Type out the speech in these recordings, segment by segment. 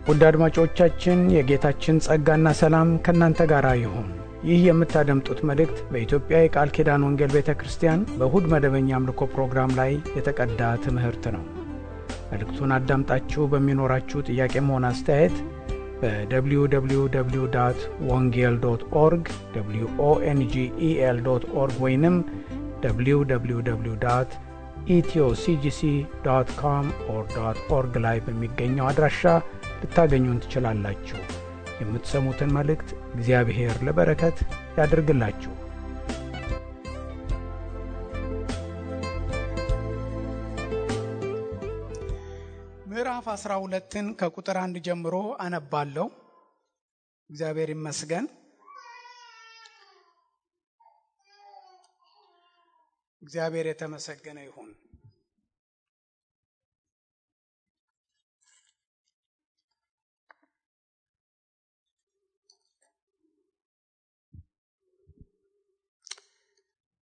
ውድ አድማጮቻችን የጌታችን ጸጋና ሰላም ከናንተ ጋር ይሁን። ይህ የምታደምጡት መልእክት በኢትዮጵያ የቃል ኪዳን ወንጌል ቤተክርስቲያን በእሁድ መደበኛ አምልኮ ፕሮግራም ላይ የተቀዳ ትምህርት ነው። መልእክቱን አዳምጣችሁ በሚኖራችሁ ጥያቄም ሆነ አስተያየት በwww.wongel.org wongel.org ወይንም www.ethioCGC.com/org ላይ በሚገኘው አድራሻ ልታገኙን ትችላላችሁ። የምትሰሙትን መልእክት እግዚአብሔር ለበረከት ያድርግላችሁ። ምዕራፍ 12ን ከቁጥር 1 ጀምሮ አነባለሁ። እግዚአብሔር ይመስገን። እግዚአብሔር የተመሰገነ ይሁን።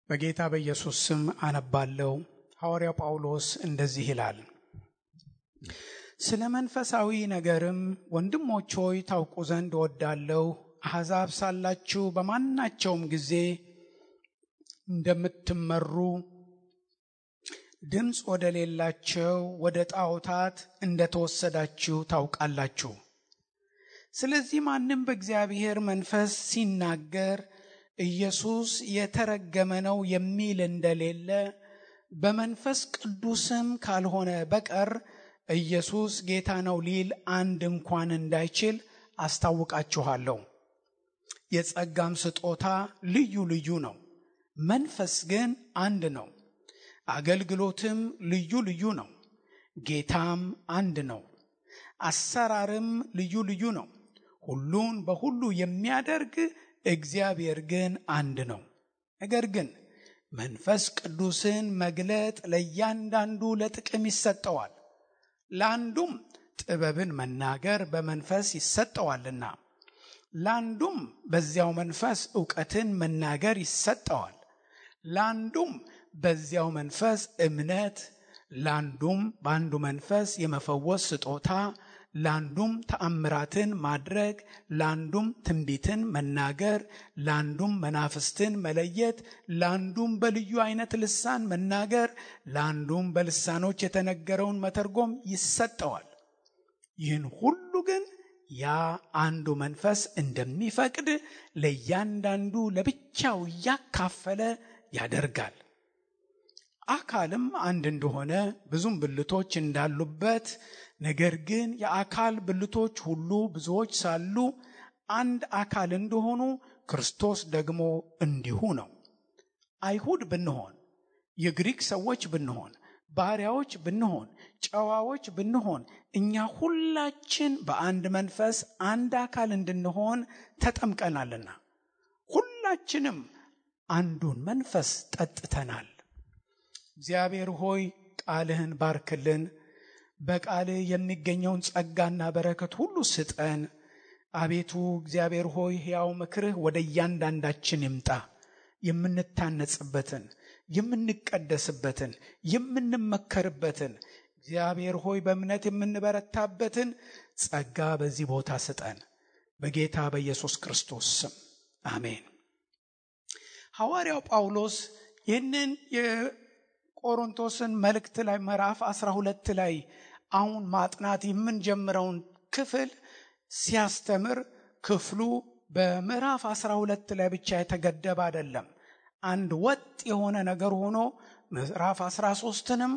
በጌታ በኢየሱስ ስም አነባለሁ። ሐዋርያው ጳውሎስ እንደዚህ ይላል። ስለ መንፈሳዊ ነገርም ወንድሞች ሆይ ታውቁ ዘንድ እወዳለሁ። አሕዛብ ሳላችሁ በማናቸውም ጊዜ እንደምትመሩ ድምፅ ወደ ሌላቸው ወደ ጣዖታት እንደተወሰዳችሁ ታውቃላችሁ። ስለዚህ ማንም በእግዚአብሔር መንፈስ ሲናገር ኢየሱስ የተረገመ ነው የሚል እንደሌለ በመንፈስ ቅዱስም ካልሆነ በቀር ኢየሱስ ጌታ ነው ሊል አንድ እንኳን እንዳይችል አስታውቃችኋለሁ። የጸጋም ስጦታ ልዩ ልዩ ነው፣ መንፈስ ግን አንድ ነው። አገልግሎትም ልዩ ልዩ ነው፣ ጌታም አንድ ነው። አሰራርም ልዩ ልዩ ነው፣ ሁሉን በሁሉ የሚያደርግ እግዚአብሔር ግን አንድ ነው። ነገር ግን መንፈስ ቅዱስን መግለጥ ለእያንዳንዱ ለጥቅም ይሰጠዋል። ለአንዱም ጥበብን መናገር በመንፈስ ይሰጠዋልና፣ ለአንዱም በዚያው መንፈስ ዕውቀትን መናገር ይሰጠዋል። ለአንዱም በዚያው መንፈስ እምነት፣ ለአንዱም በአንዱ መንፈስ የመፈወስ ስጦታ፣ ለአንዱም ተአምራትን ማድረግ፣ ለአንዱም ትንቢትን መናገር፣ ለአንዱም መናፍስትን መለየት፣ ለአንዱም በልዩ አይነት ልሳን መናገር፣ ለአንዱም በልሳኖች የተነገረውን መተርጎም ይሰጠዋል። ይህን ሁሉ ግን ያ አንዱ መንፈስ እንደሚፈቅድ ለእያንዳንዱ ለብቻው እያካፈለ ያደርጋል። አካልም አንድ እንደሆነ ብዙም ብልቶች እንዳሉበት፣ ነገር ግን የአካል ብልቶች ሁሉ ብዙዎች ሳሉ አንድ አካል እንደሆኑ ክርስቶስ ደግሞ እንዲሁ ነው። አይሁድ ብንሆን፣ የግሪክ ሰዎች ብንሆን፣ ባሪያዎች ብንሆን፣ ጨዋዎች ብንሆን፣ እኛ ሁላችን በአንድ መንፈስ አንድ አካል እንድንሆን ተጠምቀናልና ሁላችንም አንዱን መንፈስ ጠጥተናል። እግዚአብሔር ሆይ ቃልህን ባርክልን፣ በቃልህ የሚገኘውን ጸጋና በረከት ሁሉ ስጠን። አቤቱ እግዚአብሔር ሆይ ሕያው ምክርህ ወደ እያንዳንዳችን ይምጣ። የምንታነጽበትን፣ የምንቀደስበትን፣ የምንመከርበትን፣ እግዚአብሔር ሆይ በእምነት የምንበረታበትን ጸጋ በዚህ ቦታ ስጠን። በጌታ በኢየሱስ ክርስቶስ ስም አሜን። ሐዋርያው ጳውሎስ ይህንን የቆሮንቶስን መልእክት ላይ ምዕራፍ 12 ላይ አሁን ማጥናት የምንጀምረውን ክፍል ሲያስተምር ክፍሉ በምዕራፍ 12 ላይ ብቻ የተገደበ አይደለም። አንድ ወጥ የሆነ ነገር ሆኖ ምዕራፍ 13ንም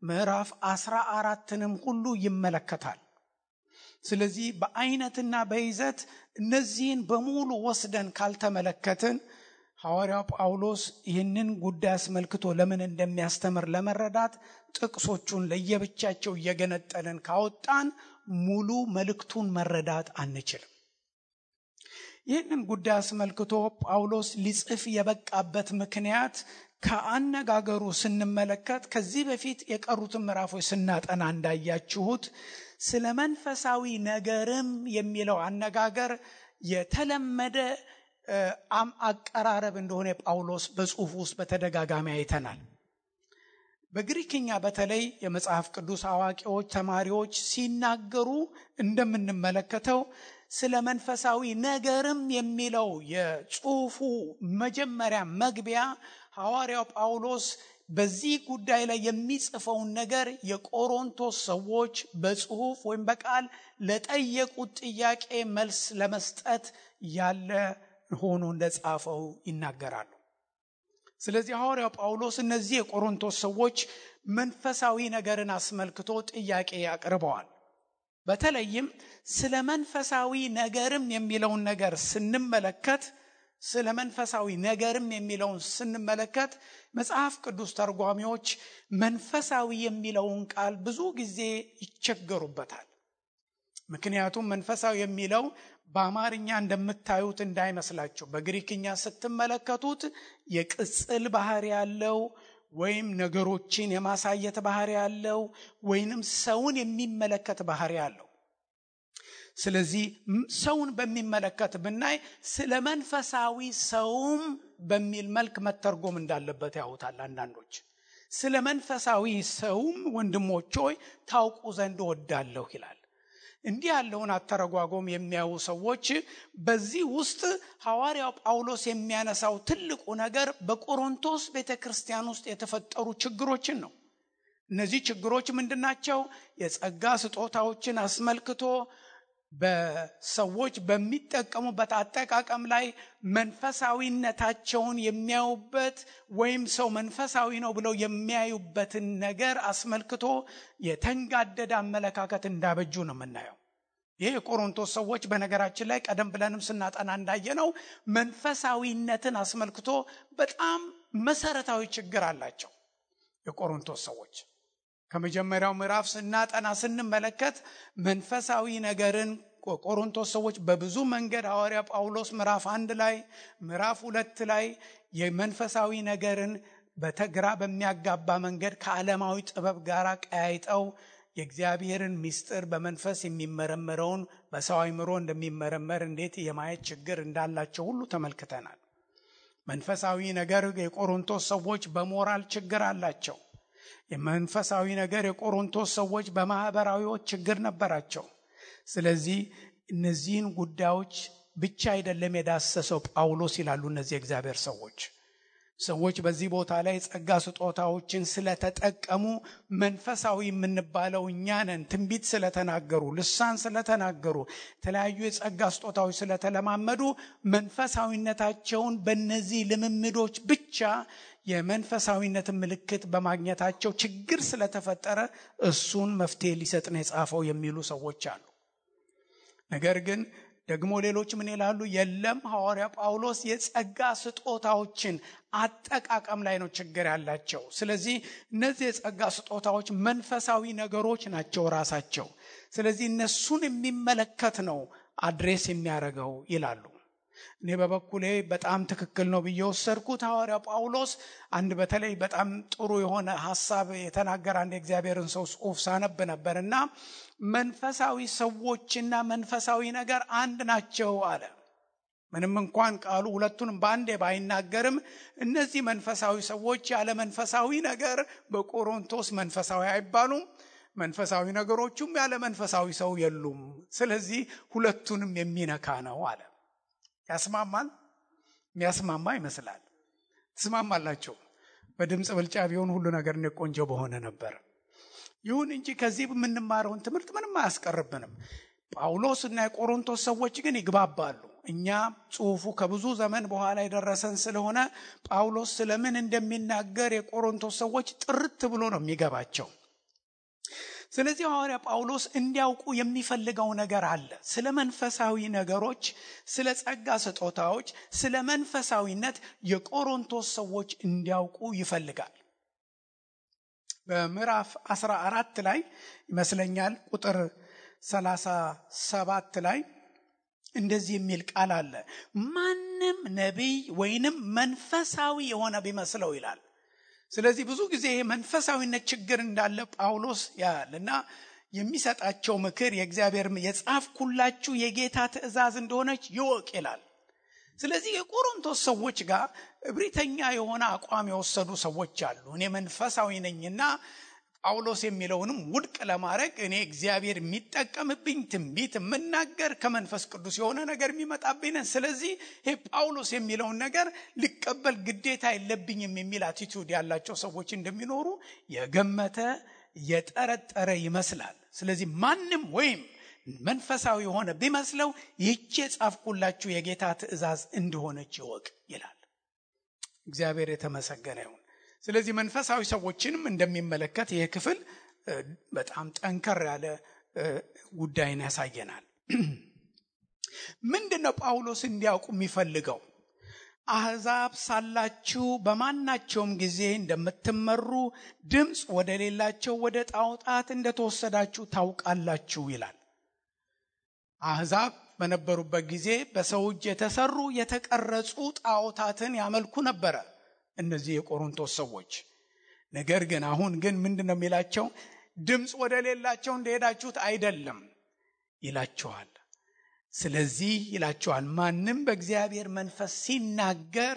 ምዕራፍ 14ንም ሁሉ ይመለከታል። ስለዚህ በአይነትና በይዘት እነዚህን በሙሉ ወስደን ካልተመለከትን ሐዋርያው ጳውሎስ ይህንን ጉዳይ አስመልክቶ ለምን እንደሚያስተምር ለመረዳት ጥቅሶቹን ለየብቻቸው እየገነጠልን ካወጣን ሙሉ መልእክቱን መረዳት አንችልም። ይህንን ጉዳይ አስመልክቶ ጳውሎስ ሊጽፍ የበቃበት ምክንያት ከአነጋገሩ ስንመለከት ከዚህ በፊት የቀሩትን ምዕራፎች ስናጠና እንዳያችሁት ስለ መንፈሳዊ ነገርም የሚለው አነጋገር የተለመደ አቀራረብ እንደሆነ ጳውሎስ በጽሑፍ ውስጥ በተደጋጋሚ አይተናል። በግሪክኛ በተለይ የመጽሐፍ ቅዱስ አዋቂዎች ተማሪዎች ሲናገሩ እንደምንመለከተው ስለ መንፈሳዊ ነገርም የሚለው የጽሑፉ መጀመሪያ መግቢያ ሐዋርያው ጳውሎስ በዚህ ጉዳይ ላይ የሚጽፈውን ነገር የቆሮንቶስ ሰዎች በጽሑፍ ወይም በቃል ለጠየቁት ጥያቄ መልስ ለመስጠት ያለ ሆኖ እንደጻፈው ይናገራሉ። ስለዚህ ሐዋርያው ጳውሎስ እነዚህ የቆሮንቶስ ሰዎች መንፈሳዊ ነገርን አስመልክቶ ጥያቄ ያቀርበዋል። በተለይም ስለ መንፈሳዊ ነገርም የሚለውን ነገር ስንመለከት መጽሐፍ ቅዱስ ተርጓሚዎች መንፈሳዊ የሚለውን ቃል ብዙ ጊዜ ይቸገሩበታል። ምክንያቱም መንፈሳዊ የሚለው በአማርኛ እንደምታዩት እንዳይመስላችሁ። በግሪክኛ ስትመለከቱት የቅጽል ባህሪ ያለው ወይም ነገሮችን የማሳየት ባህሪ ያለው ወይንም ሰውን የሚመለከት ባህሪ ያለው። ስለዚህ ሰውን በሚመለከት ብናይ ስለ መንፈሳዊ ሰውም በሚል መልክ መተርጎም እንዳለበት ያውታል አንዳንዶች። ስለ መንፈሳዊ ሰውም ወንድሞች ሆይ ታውቁ ዘንድ እወዳለሁ ይላል። እንዲህ ያለውን አተረጓጎም የሚያዩ ሰዎች በዚህ ውስጥ ሐዋርያው ጳውሎስ የሚያነሳው ትልቁ ነገር በቆሮንቶስ ቤተክርስቲያን ውስጥ የተፈጠሩ ችግሮችን ነው። እነዚህ ችግሮች ምንድናቸው? የጸጋ ስጦታዎችን አስመልክቶ በሰዎች በሚጠቀሙበት አጠቃቀም ላይ መንፈሳዊነታቸውን የሚያዩበት ወይም ሰው መንፈሳዊ ነው ብለው የሚያዩበትን ነገር አስመልክቶ የተንጋደደ አመለካከት እንዳበጁ ነው የምናየው። ይህ የቆሮንቶስ ሰዎች በነገራችን ላይ ቀደም ብለንም ስናጠና እንዳየነው መንፈሳዊነትን አስመልክቶ በጣም መሰረታዊ ችግር አላቸው። የቆሮንቶስ ሰዎች ከመጀመሪያው ምዕራፍ ስንመለከት መንፈሳዊ ነገርን ቆሮንቶስ ሰዎች በብዙ መንገድ ሐዋርያ ጳውሎስ ምዕራፍ 1 ላይ ምዕራፍ 2 ላይ የመንፈሳዊ ነገርን በተግራ በሚያጋባ መንገድ ከዓለማዊ ጥበብ ጋር ቀያይጠው የእግዚአብሔርን ምስጢር በመንፈስ የሚመረመረውን በሰው አእምሮ እንደሚመረመር እንዴት የማየት ችግር እንዳላቸው ሁሉ ተመልክተናል። መንፈሳዊ ነገር የቆሮንቶስ ሰዎች በሞራል ችግር አላቸው። የመንፈሳዊ ነገር የቆሮንቶስ ሰዎች በማህበራዊ ችግር ነበራቸው። ስለዚህ እነዚህን ጉዳዮች ብቻ አይደለም የዳሰሰው ጳውሎስ ይላሉ እነዚህ እግዚአብሔር ሰዎች በዚህ ቦታ ላይ ጸጋ ስጦታዎችን ስለተጠቀሙ መንፈሳዊ የምንባለው እኛ ነን። ትንቢት ስለተናገሩ፣ ልሳን ስለተናገሩ፣ የተለያዩ የጸጋ ስጦታዎች ስለተለማመዱ መንፈሳዊነታቸውን በእነዚህ ልምምዶች ብቻ የመንፈሳዊነት ምልክት በማግኘታቸው ችግር ስለተፈጠረ እሱን መፍትሄ ሊሰጥ ነው የጻፈው የሚሉ ሰዎች አሉ። ነገር ግን ደግሞ ሌሎች ምን ይላሉ? የለም ሐዋርያ ጳውሎስ የጸጋ ስጦታዎችን አጠቃቀም ላይ ነው ችግር ያላቸው። ስለዚህ እነዚህ የጸጋ ስጦታዎች መንፈሳዊ ነገሮች ናቸው ራሳቸው። ስለዚህ እነሱን የሚመለከት ነው አድሬስ የሚያደርገው ይላሉ። እኔ በበኩሌ በጣም ትክክል ነው ብዬ ወሰድኩት። ሐዋርያ ጳውሎስ አንድ በተለይ በጣም ጥሩ የሆነ ሐሳብ የተናገረ አንድ የእግዚአብሔርን ሰው ጽሑፍ ሳነብ ነበርና መንፈሳዊ ሰዎችና መንፈሳዊ ነገር አንድ ናቸው አለ። ምንም እንኳን ቃሉ ሁለቱንም በአንዴ ባይናገርም እነዚህ መንፈሳዊ ሰዎች ያለ መንፈሳዊ ነገር በቆሮንቶስ መንፈሳዊ አይባሉም፣ መንፈሳዊ ነገሮቹም ያለ መንፈሳዊ ሰው የሉም። ስለዚህ ሁለቱንም የሚነካ ነው አለ። ያስማማል? የሚያስማማ ይመስላል። ትስማማላችሁ? በድምጽ ብልጫ ቢሆን ሁሉ ነገር ቆንጆ በሆነ ነበር። ይሁን እንጂ ከዚህ የምንማረውን ትምህርት ምንም አያስቀርብንም። ጳውሎስና የቆሮንቶስ ሰዎች ግን ይግባባሉ። እኛ ጽሑፉ ከብዙ ዘመን በኋላ የደረሰን ስለሆነ ጳውሎስ ስለምን እንደሚናገር የቆሮንቶስ ሰዎች ጥርት ብሎ ነው የሚገባቸው። ስለዚህ ሐዋርያ ጳውሎስ እንዲያውቁ የሚፈልገው ነገር አለ። ስለ መንፈሳዊ ነገሮች፣ ስለ ጸጋ ስጦታዎች፣ ስለ መንፈሳዊነት የቆሮንቶስ ሰዎች እንዲያውቁ ይፈልጋል። በምዕራፍ 14 ላይ ይመስለኛል ቁጥር 37 ላይ እንደዚህ የሚል ቃል አለ። ማንም ነቢይ ወይንም መንፈሳዊ የሆነ ቢመስለው ይላል። ስለዚህ ብዙ ጊዜ መንፈሳዊነት ችግር እንዳለ ጳውሎስ ያልና የሚሰጣቸው ምክር የእግዚአብሔር የጻፍኩላችሁ የጌታ ትእዛዝ እንደሆነች ይወቅ ይላል። ስለዚህ የቆሮንቶስ ሰዎች ጋር እብሪተኛ የሆነ አቋም የወሰዱ ሰዎች አሉ። እኔ መንፈሳዊ ነኝና ጳውሎስ የሚለውንም ውድቅ ለማድረግ እኔ እግዚአብሔር የሚጠቀምብኝ ትንቢት የምናገር ከመንፈስ ቅዱስ የሆነ ነገር የሚመጣብኝ ነኝ፣ ስለዚህ ይሄ ጳውሎስ የሚለውን ነገር ሊቀበል ግዴታ የለብኝም የሚል አቲቲዩድ ያላቸው ሰዎች እንደሚኖሩ የገመተ የጠረጠረ ይመስላል። ስለዚህ ማንም ወይም መንፈሳዊ የሆነ ቢመስለው ይህች የጻፍኩላችሁ የጌታ ትእዛዝ እንደሆነች ይወቅ ይላል። እግዚአብሔር የተመሰገነ ይሁን። ስለዚህ መንፈሳዊ ሰዎችንም እንደሚመለከት ይህ ክፍል በጣም ጠንከር ያለ ጉዳይን ያሳየናል። ምንድነው ጳውሎስ እንዲያውቁ የሚፈልገው? አሕዛብ ሳላችሁ በማናቸውም ጊዜ እንደምትመሩ ድምፅ ወደ ሌላቸው ወደ ጣዖታት እንደተወሰዳችሁ ታውቃላችሁ ይላል። አሕዛብ በነበሩበት ጊዜ በሰው እጅ የተሰሩ የተቀረጹ ጣዖታትን ያመልኩ ነበረ እነዚህ የቆሮንቶስ ሰዎች። ነገር ግን አሁን ግን ምንድነው የሚላቸው? ድምፅ ወደ ሌላቸው እንደሄዳችሁት አይደለም ይላቸዋል። ስለዚህ ይላቸዋል ማንም በእግዚአብሔር መንፈስ ሲናገር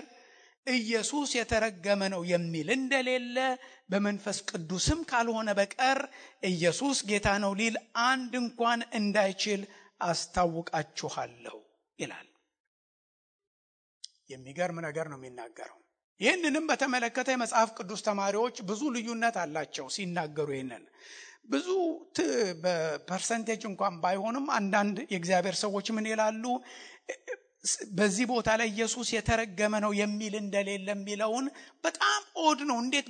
ኢየሱስ የተረገመ ነው የሚል እንደሌለ በመንፈስ ቅዱስም ካልሆነ በቀር ኢየሱስ ጌታ ነው ሊል አንድ እንኳን እንዳይችል አስታውቃችኋለሁ ይላል። የሚገርም ነገር ነው የሚናገረው። ይህንንም በተመለከተ የመጽሐፍ ቅዱስ ተማሪዎች ብዙ ልዩነት አላቸው ሲናገሩ። ይህንን ብዙ በፐርሰንቴጅ እንኳን ባይሆንም አንዳንድ የእግዚአብሔር ሰዎች ምን ይላሉ? በዚህ ቦታ ላይ ኢየሱስ የተረገመ ነው የሚል እንደሌለ የሚለውን በጣም ኦድ ነው። እንዴት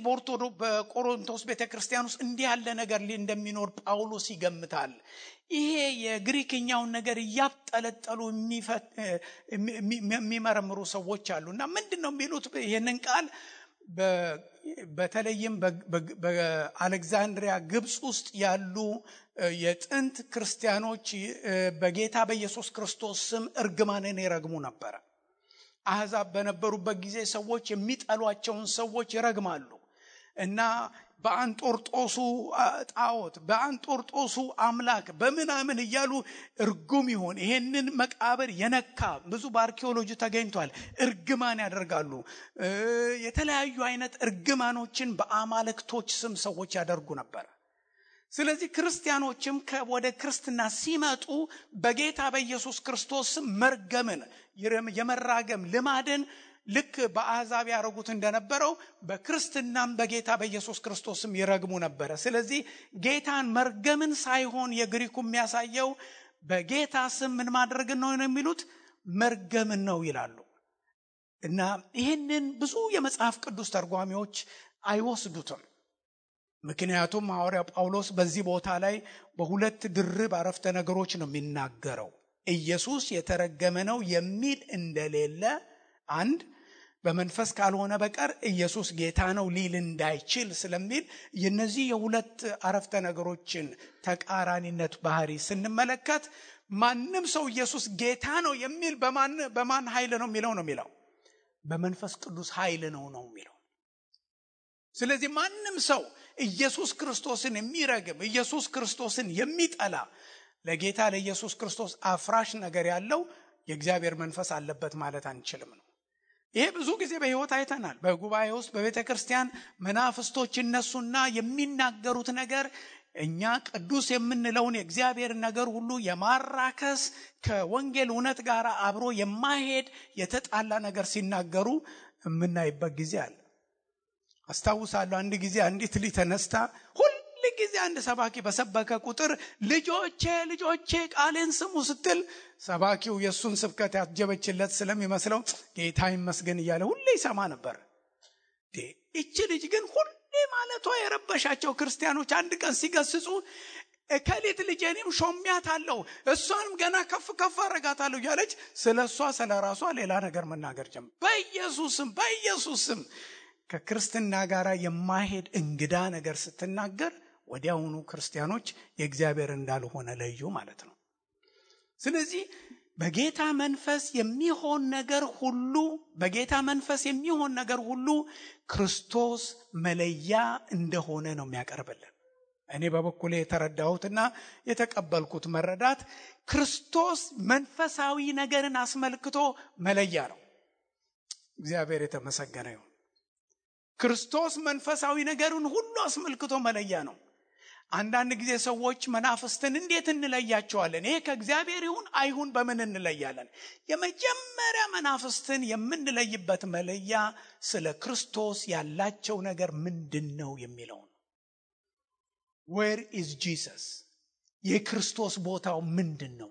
በቆሮንቶስ ቤተክርስቲያን ውስጥ እንዲህ ያለ ነገር እንደሚኖር ጳውሎስ ይገምታል? ይሄ የግሪክኛውን ነገር እያጠለጠሉ የሚመረምሩ ሰዎች አሉና ምንድነው የሚሉት? ይሄንን ቃል በተለይም በአሌክዛንድሪያ ግብጽ ውስጥ ያሉ የጥንት ክርስቲያኖች በጌታ በኢየሱስ ክርስቶስ ስም እርግማንን ይረግሙ ነበር። አሕዛብ በነበሩበት ጊዜ ሰዎች የሚጠሏቸውን ሰዎች ይረግማሉ እና በአንጦርጦሱ ጣዖት በአንጦርጦሱ አምላክ በምናምን እያሉ እርጉም ይሆን ይሄንን መቃብር የነካ ብዙ በአርኪኦሎጂ ተገኝቷል እርግማን ያደርጋሉ። የተለያዩ አይነት እርግማኖችን በአማልክቶች ስም ሰዎች ያደርጉ ነበር። ስለዚህ ክርስቲያኖችም ወደ ክርስትና ሲመጡ በጌታ በኢየሱስ ክርስቶስ መርገምን የመራገም ልማድን ልክ በአሕዛብ ያረጉት እንደነበረው በክርስትናም በጌታ በኢየሱስ ክርስቶስም ይረግሙ ነበር። ስለዚህ ጌታን መርገምን ሳይሆን የግሪኩ የሚያሳየው በጌታ ስም ምን ማድረግ ነው የሚሉት? መርገምን ነው ይላሉ። እና ይህንን ብዙ የመጽሐፍ ቅዱስ ተርጓሚዎች አይወስዱትም። ምክንያቱም ሐዋርያው ጳውሎስ በዚህ ቦታ ላይ በሁለት ድርብ አረፍተ ነገሮች ነው የሚናገረው። ኢየሱስ የተረገመ ነው የሚል እንደሌለ አንድ፣ በመንፈስ ካልሆነ በቀር ኢየሱስ ጌታ ነው ሊል እንዳይችል ስለሚል የነዚህ የሁለት አረፍተ ነገሮችን ተቃራኒነት ባህሪ ስንመለከት ማንም ሰው ኢየሱስ ጌታ ነው የሚል በማን ኃይል ነው የሚለው? በመንፈስ ቅዱስ ኃይል ነው የሚለው። ስለዚህ ማንም ሰው ኢየሱስ ክርስቶስን የሚረግም ኢየሱስ ክርስቶስን የሚጠላ ለጌታ ለኢየሱስ ክርስቶስ አፍራሽ ነገር ያለው የእግዚአብሔር መንፈስ አለበት ማለት አንችልም ነው። ይሄ ብዙ ጊዜ በሕይወት አይተናል። በጉባኤ ውስጥ በቤተ ክርስቲያን መናፍስቶች እነሱና የሚናገሩት ነገር እኛ ቅዱስ የምንለውን የእግዚአብሔር ነገር ሁሉ የማራከስ ከወንጌል እውነት ጋር አብሮ የማይሄድ የተጣላ ነገር ሲናገሩ የምናይበት ጊዜ አለ። አስታውሳለሁ አንድ ጊዜ አንዲት ልጅ ተነስታ ሁሉ ጊዜ አንድ ሰባኪ በሰበከ ቁጥር ልጆቼ ቃሌን ስሙ ስትል ሰባኪው የሱን ስብከት ያጀበችለት ስለሚመስለው ጌታ ይመስገን እያለ ሁሌ ይሰማ ነበር። እቺ ልጅ ግን ሁሌ ማለቷ የረበሻቸው ክርስቲያኖች አንድ ቀን ሲገስጹ ከሌት ልጄንም ሾሚያታለሁ እሷንም ገና ከፍ አረጋታለሁ ያለች ስለሷ ስለራሷ ሌላ ነገር መናገር ጀመረ። በኢየሱስም ከክርስትና ጋር የማይሄድ እንግዳ ነገር ስትናገር ወዲያውኑ ክርስቲያኖች የእግዚአብሔር እንዳልሆነ ለዩ ማለት ነው። ስለዚህ በጌታ መንፈስ የሚሆን ነገር ሁሉ ክርስቶስ መለያ እንደሆነ ነው የሚያቀርብልን። እኔ በበኩሌ የተረዳሁትና የተቀበልኩት መረዳት ክርስቶስ መንፈሳዊ ነገርን አስመልክቶ መለያ ነው። እግዚአብሔር የተመሰገነ ይሁን። ክርስቶስ መንፈሳዊ ነገርን ሁሉ አስመልክቶ መለያ ነው። አንዳንድ ጊዜ ሰዎች መናፍስትን እንዴት እንለያቸዋለን? ይሄ ከእግዚአብሔር ይሁን አይሁን በምን እንለያለን? የመጀመሪያ መናፍስትን የምንለይበት መለያ ስለ ክርስቶስ ያላቸው ነገር ምንድነው የሚለው ነው። Where is Jesus? የክርስቶስ ቦታው ምንድነው?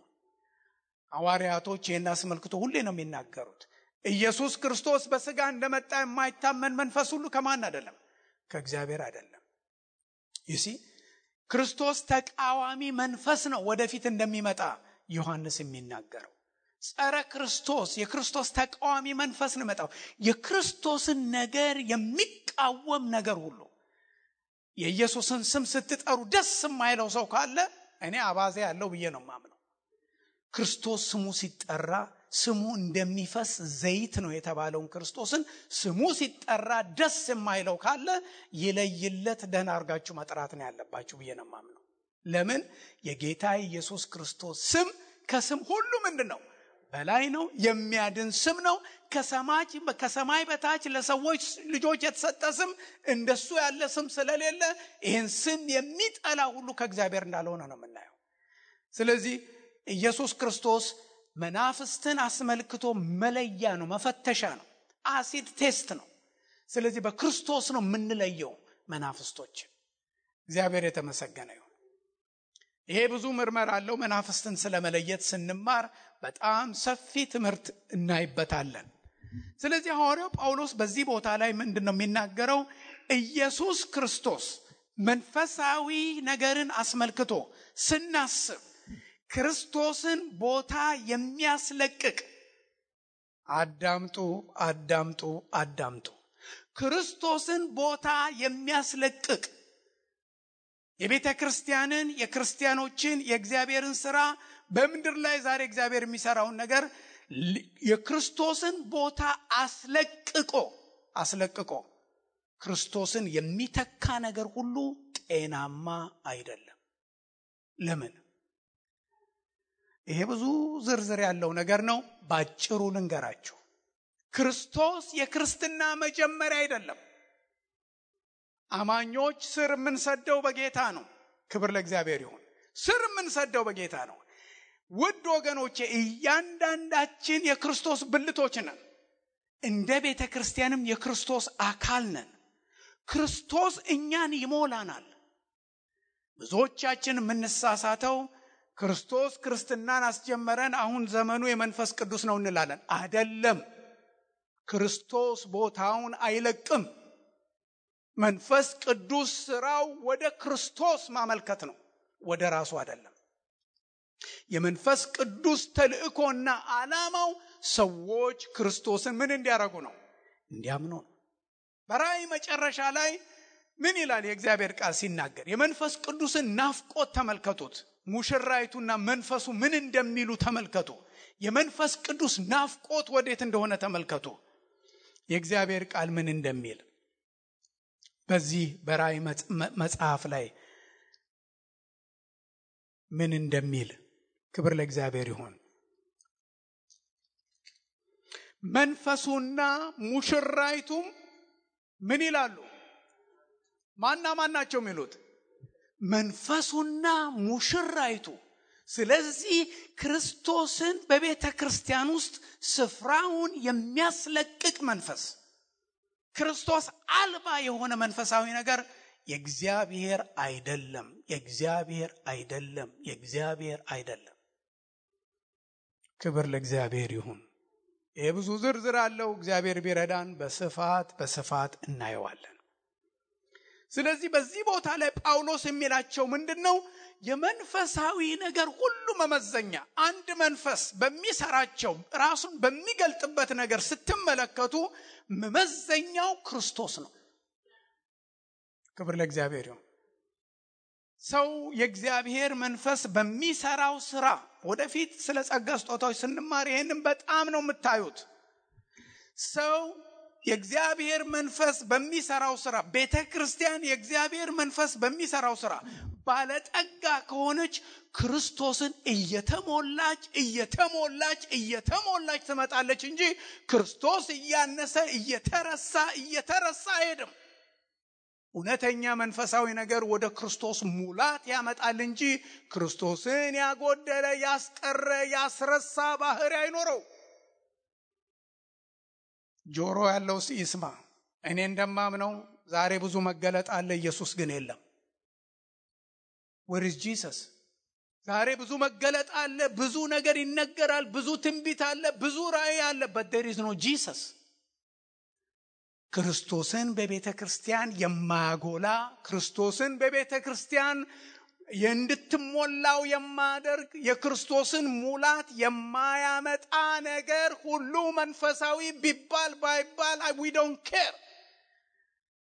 ሐዋርያቶች ይህን አስመልክቶ ሁሌ ነው የሚናገሩት። ኢየሱስ ክርስቶስ በሥጋ እንደመጣ የማይታመን መንፈስ ሁሉ ከማን አይደለም? ከእግዚአብሔር አይደለም። ይሲ ክርስቶስ ተቃዋሚ መንፈስ ነው ወደፊት እንደሚመጣ ዮሐንስ የሚናገረው። ጸረ ክርስቶስ የክርስቶስ ተቃዋሚ መንፈስ ነው መጣው። የክርስቶስን ነገር የሚቃወም ነገር ሁሉ የኢየሱስን ስም ስትጠሩ ደስ የማይለው ሰው ካለ እኔ አባዜ ያለው ብዬ ነው ማምነው። ክርስቶስ ስሙ ሲጠራ ስሙ እንደሚፈስ ዘይት ነው የተባለውን ክርስቶስን ስሙ ሲጠራ ደስ የማይለው ካለ ይለይለት፣ ደህና አርጋችሁ መጥራት ነው ያለባችሁ ብዬ ነው ማምነው። ለምን? የጌታ ኢየሱስ ክርስቶስ ስም ከስም ሁሉ ምንድነው? በላይ ነው። የሚያድን ስም ነው። ከሰማይ በታች ለሰዎች ልጆች የተሰጠ ስም እንደሱ ያለ ስም ስለሌለ ይህን ስም የሚጠላ ሁሉ ከእግዚአብሔር እንዳልሆነ ነው የምናየው። ስለዚህ ኢየሱስ ክርስቶስ መናፍስትን አስመልክቶ መለያ ነው፣ መፈተሻ ነው፣ አሲድ ቴስት ነው። ስለዚህ በክርስቶስ ነው የምንለየው መናፍስቶችን። እግዚአብሔር የተመሰገነ ይሁን። ይሄ ብዙ ምርመራ አለው። መናፍስትን ስለመለየት ስንማር በጣም ሰፊ ትምህርት እናይበታለን። ስለዚህ ሐዋርያው ጳውሎስ በዚህ ቦታ ላይ ምንድነው የሚናገረው? ኢየሱስ ክርስቶስ መንፈሳዊ ነገርን አስመልክቶ ስናስብ ክርስቶስን ቦታ የሚያስለቅቅ አዳምጡ። ክርስቶስን ቦታ የሚያስለቅቅ የቤተ ክርስቲያንን የክርስቲያኖችን የእግዚአብሔርን ሥራ በምድር ላይ ዛሬ እግዚአብሔር የሚሰራውን ነገር የክርስቶስን ቦታ አስለቅቆ ክርስቶስን የሚተካ ነገር ሁሉ ጤናማ አይደለም። ለምን? ይሄ ብዙ ዝርዝር ያለው ነገር ነው። ባጭሩ ልንገራችሁ። ክርስቶስ የክርስትና መጀመሪያ አይደለም። አማኞች ስር የምንሰደው በጌታ ነው። ክብር ለእግዚአብሔር ይሁን። ስር የምንሰደው በጌታ ነው። ውድ ወገኖቼ እያንዳንዳችን የክርስቶስ ብልቶች ነን። እንደ ቤተ ክርስቲያንም የክርስቶስ አካል ነን። ክርስቶስ እኛን ይሞላናል። ብዙዎቻችን የምንሳሳተው ክርስቶስ ክርስትናን አስጀመረን፣ አሁን ዘመኑ የመንፈስ ቅዱስ ነው እንላለን። አይደለም። ክርስቶስ ቦታውን አይለቅም። መንፈስ ቅዱስ ስራው ወደ ክርስቶስ ማመልከት ነው፣ ወደ ራሱ አይደለም። የመንፈስ ቅዱስ ተልእኮና ዓላማው ሰዎች ክርስቶስን ምን እንዲያረጉ ነው? እንዲያምኑ ነው። በራእይ መጨረሻ ላይ ምን ይላል የእግዚአብሔር ቃል ሲናገር? የመንፈስ ቅዱስን ናፍቆት ተመልከቱት። ሙሽራይቱና መንፈሱ ምን እንደሚሉ ተመልከቱ። የመንፈስ ቅዱስ ናፍቆት ወዴት እንደሆነ ተመልከቱ። የእግዚአብሔር ቃል ምን እንደሚል በዚህ በራእይ መጽሐፍ ላይ ምን እንደሚል ክብር ለእግዚአብሔር ይሁን። መንፈሱና ሙሽራይቱም ምን ይላሉ? ማን ናቸው የሚሉት? መንፈሱና ሙሽራይቱ። ስለዚህ ክርስቶስን በቤተ ክርስቲያን ውስጥ ስፍራውን የሚያስለቅቅ መንፈስ፣ ክርስቶስ አልባ የሆነ መንፈሳዊ ነገር የእግዚአብሔር አይደለም። ክብር ለእግዚአብሔር ይሁን። ይሄ ብዙ ዝርዝር አለው። እግዚአብሔር ቢረዳን በስፋት እናየዋለን። ስለዚህ በዚህ ቦታ ላይ ጳውሎስ የሚላቸው ምንድነው? የመንፈሳዊ ነገር ሁሉ መመዘኛ አንድ መንፈስ በሚሰራቸው ራሱን በሚገልጥበት ነገር ስትመለከቱ መመዘኛው ክርስቶስ ነው። ክብር ለእግዚአብሔር ይሁን። ሰው የእግዚአብሔር መንፈስ በሚሰራው ስራ ወደፊት ስለ ጸጋ ስጦታዎች ስንማር ይሄንን በጣም ነው የምታዩት። ሰው የእግዚአብሔር መንፈስ በሚሰራው ስራ፣ ቤተ ክርስቲያን የእግዚአብሔር መንፈስ በሚሰራው ስራ ባለጠጋ ከሆነች ክርስቶስን እየተሞላች ትመጣለች እንጂ ክርስቶስ እያነሰ እየተረሳ አይሄድም። እውነተኛ መንፈሳዊ ነገር ወደ ክርስቶስ ሙላት ያመጣል እንጂ ክርስቶስን ያጎደለ ያስቀረ ያስረሳ ባህሪ አይኖረው። ጆሮ ያለው ይስማ። እኔ እንደማምነው ዛሬ ብዙ መገለጥ አለ፣ ኢየሱስ ግን የለም። where is Jesus? ዛሬ ብዙ መገለጥ አለ፣ ብዙ ነገር ይነገራል፣ ብዙ ትንቢት አለ፣ ብዙ ራእይ አለ, but there is no Jesus. ክርስቶስን በቤተ ክርስቲያን የማያጎላ ክርስቶስን በቤተ ክርስቲያን እንድትሞላው የማያደርግ የክርስቶስን ሙላት የማያመጣ ነገር ሁሉ መንፈሳዊ ቢባል ባይባል we don't care.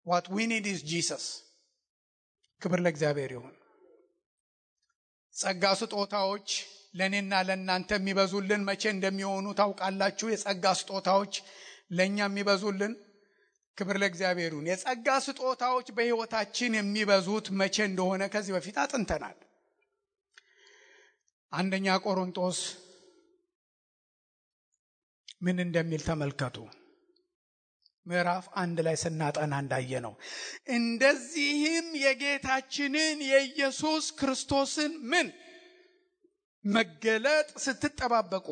What we need is Jesus. ክብር ለእግዚአብሔር ይሁን። ጸጋ ስጦታዎች ለኔና ለእናንተ የሚበዙልን መቼ እንደሚሆኑ ታውቃላችሁ? የጸጋ ስጦታዎች ለኛ የሚበዙልን ክብር ለእግዚአብሔር ይሁን። የጸጋ ስጦታዎች በሕይወታችን የሚበዙት መቼ እንደሆነ ከዚህ በፊት አጥንተናል። አንደኛ ቆሮንቶስ ምን እንደሚል ተመልከቱ። ምዕራፍ 1 ላይ ስናጠና እንዳየነው እንደዚህም የጌታችንን የኢየሱስ ክርስቶስን ምን መገለጥ ስትጠባበቁ